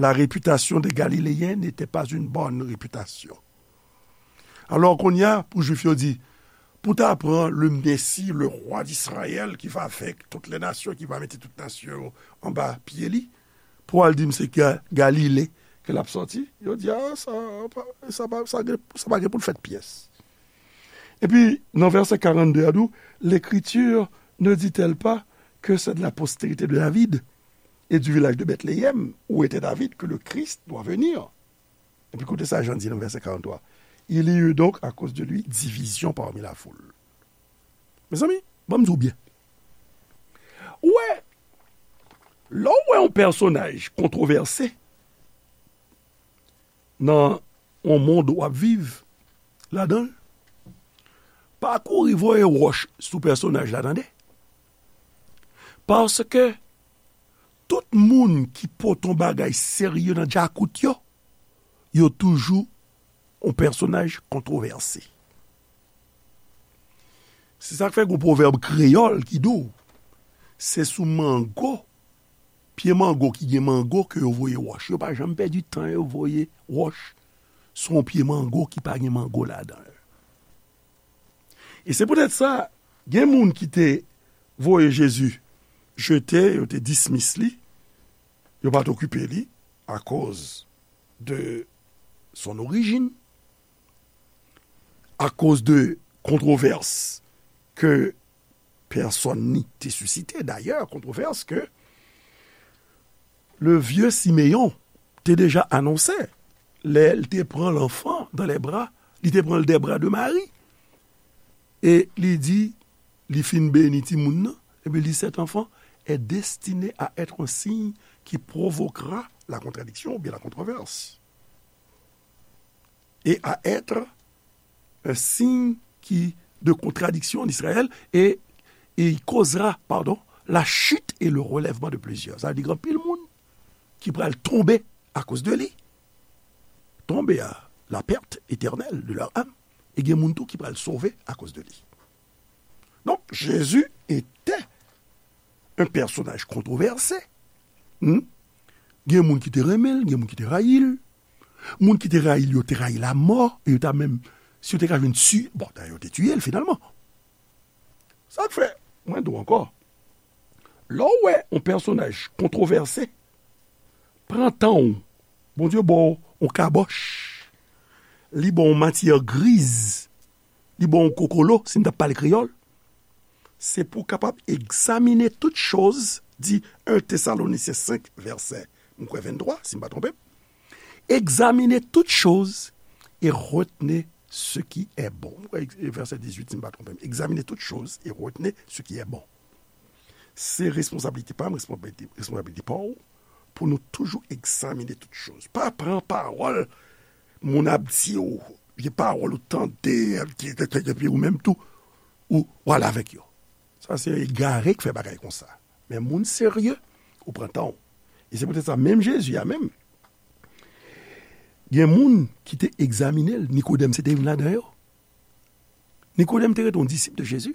La réputation des Galiléens n'était pas une bonne réputation. Alò, kounye a, pou Jwif yo di, pou ta pran le Messie, le roi d'Israël, qui va vaincre toutes les nations, qui va mettre toute nation anba pye li, pou al di m se Ga-, Galile ke l ap sòti, yo di, a, sa, pa, sa, pa, sa, gen- sa pa gen pou l fèt pyès. Epi, nan vèsè karannde a, di w, L'Écriture ne dit-elle pas que c'est de la postérité de David et du village de Bethléem, où était David, que le Christ doit venir? Epi koute sa Jan di nan vèsè karantwa. Il y eut donc à cause de lui division parmi la foule. Mezanmi, ban m di w byen. Ou wè, lè w wè yon pèsonaj kontwovèse nan yon mond w ap viv ladan l, pa kouri voye wòch sou pèsonaj la, tande. Paske tout moun ki pote yon bagay serye nan djakout yo, yo toujou yon pèsonaj kontwovèse. Se sa k fè gen yon pwovèb kreyòl ki di w, se sou mango, pye mango ki gen mango ke yo voye wòch. Yo pa janm pèdi tan yo voye wòch sou yon pye mango ki pa gen mango ladan l. E se poutèt sa, gen moun ki te voye Jezi jete, yo te dismiss li, yo pa t okipe li akoz de son origine, akoz de kontwovès ke pèsòn ni te sisite. Dayè, kontwovès ke le vieux Siméon te deja anonse lè l te pran l'enfant dans les bras, li te pran l des bras de Marie. E li di, li fin beni timoun nan, epi li, cet enfant est destiné à être un signe qui provoquera la contradiction ou bien la controverse. Et à être un signe qui, de contradiction en Israël, et, et il causera, pardon, la chute et le relèvement de plusieurs. Sa vle di gen anpil moun ki pral tonbe akoz de li. Tonbe a la perte éternelle de leur âme. E gen moun tou ki pral sove akoz de li. Donk, Jésus était un personnage controversé. Hmm? Gen moun ki te renmen l, gen moun ki te rayi l. Moun ki te rayi l, yo te rayi lamò, e yo ta menm, si yo te ka jwenn tiye, bon, dayè, yo te tiye l finalman. Sa k fè, mwen di w ankò, lè w wè yon pèsonaj kontwovèse, pran tan w, Bondye ba w yon kabòch, li ba w yon matyè griz, li ba w yon kokolo, si n t ap pale kreyòl, se pou w kapab egzamine tout choz, di en Thessaloniciens cinq, vèsè, m kwè venntwa, si m pa twonpe m. Examinez toutes choses et retenez ce qui est bon. M kwè vèsè dizuit, si m pa twonpe m. Examinez toutes choses et retenez ce qui est bon. Se responsablite pa m, responsablite, responsablite pa w, pou nou toujou egzamine tout choz. Pa pran pawòl moun ap di w, vye pawòl ou tande, epi ou menm tou, ou, ou ale avèk yo. Sa se egare k fè bagay konsa. Men moun serye, ou pran tan w. E se poutèt sa, menm Jezi a menm, gen moun ki te egzamine l, Nikodèm se te youn ladan yo. Nikodèm te rete yon disip de Jezi.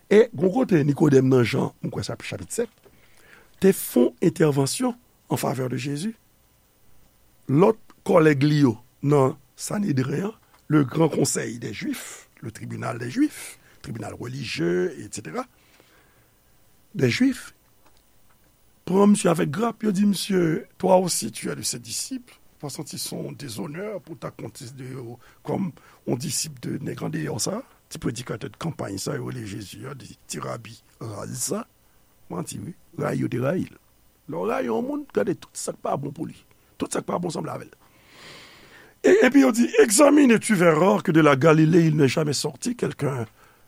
E gon kote Nikodèm nan Jan, m kwè sa chapit sèt, te fè yon entèvansyon an favè de Jezi. Lòt kòlèg li yo nan Sanedren an, le gran konsèy dè Jwif, le tribinal dè Jwif, tribinal relijye, etsetera, dè Jwif, pran misye avèk grap, yo di misye, toi aussi tu es de ses disciples, pa santi se yon dezonè pou ta konsidere w kòm yon disip de nèg andeyò sa, ti predikatè de kanpay sa, yo rele Jezi a, de ti rabi raz sa. Manti, wi. Rayi yo te rayi l. Lè w rayi yon moun, gade tout sa k pa bon pou li. Tout sa k pa bon sanble avè l. E, epi yo di, examine et tu verras que de la Galilée, il n'est jamais sorti quelqu'un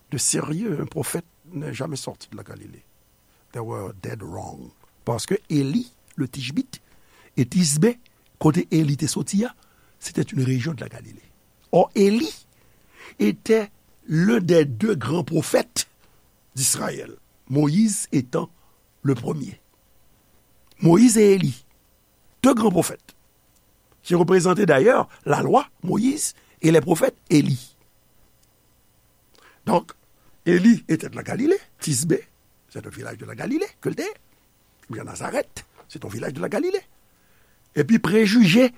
de sérieux, un prophète n'est jamais sorti de la Galilée. They were dead wrong. Paske Eli, le Tishbit, e Tisbe, kote Eli te soti a, c'était une région de la Galilée. Or, Élie était l'un des deux grands prophètes d'Israël, Moïse étant le premier. Moïse et Élie, deux grands prophètes, qui représentaient d'ailleurs la loi, Moïse, et les prophètes, Élie. Donc, Élie était de la Galilée, Tisbé, c'est un village de la Galilée, que le Épi Nazarèt, c'est un village de la Galilée. Epi prejije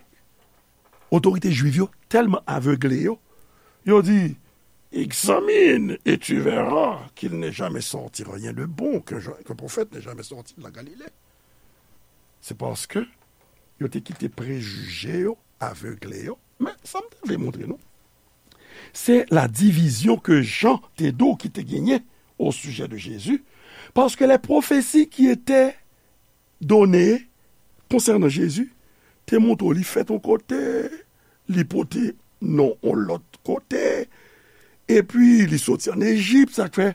otorite jwiv yo tèlman avegle yo, yo di, examine et tu verras qu'il n'est jamais sorti rien de bon, qu'un qu'un prophète n'est jamais sorti de la Galilée. Se paske yo te kite prejije yo avegle yo. Men, sa m te vle montre nou, se la divizyon ke Jan te di w ki te genyen o sijè de Jezi, paske les prophéties qui étaient données concernant Jésus te montre w li fèt yon kote, li pote non yon lòt kote, epi li soti ann Ejip, sa k fè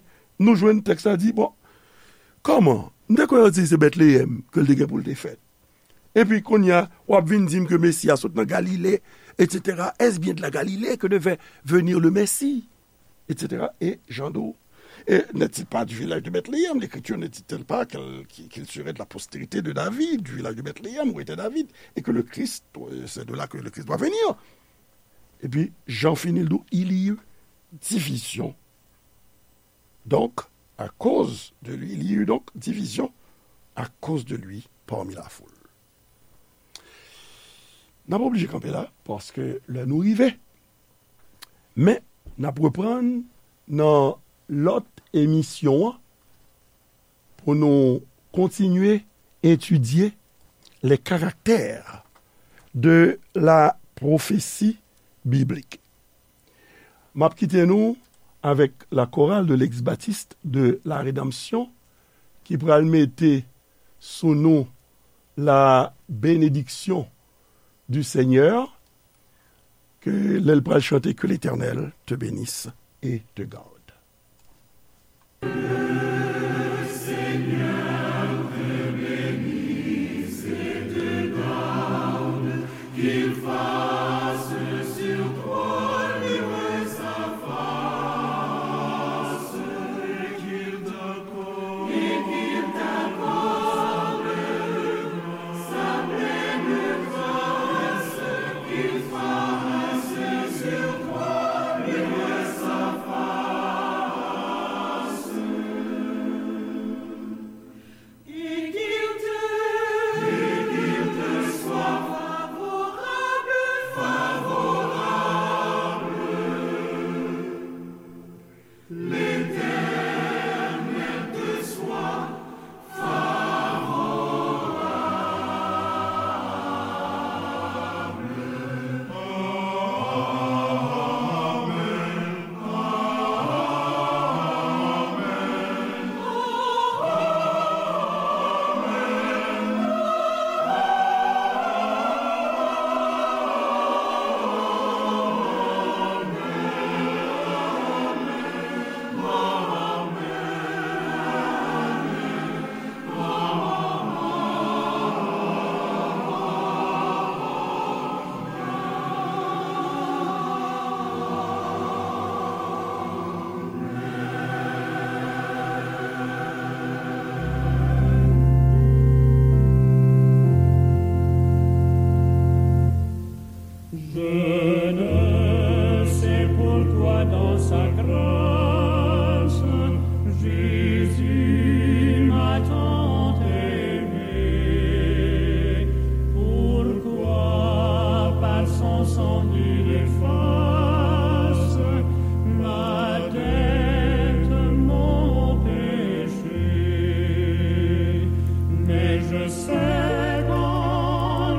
nou jwenn tèks la di, bon, kòman? M te kwè yo di se Betleyèm ke l te gen pou l te fèt. Epi kounye a, w ap vin di m ke Mesi a sot nan Galile, et cetera. Est-ce bien de la Galilée que devait venir le Messie? Et cetera. Et Jean d'Eau. Et n'est-il pas du village de Bethléem? L'Écriture ne dit-elle pas qu'elle- qu'il qu'il serait de la postérité de David, du village de Bethléem où était David, et que le Christ, euh, c'est de là que le Christ doit venir? Epi Jan fini l di w, il y eut division. Donc, à cause de lui, il y eut donc division à cause de lui parmi la foule. N ap oblije kanpe la, paske lè nou rive. Men, n ap reprann nan lòt emisyon an pou nou kontinye etidye les caractères de la prophétie biblique. M ap kite nou avèk la chorale de l'ex-baptiste de la Rédemption ki pral mete sou nou la bénédiction du Seigneur, ke lè l pral chante, que l'Éternel te bénisse et te garde.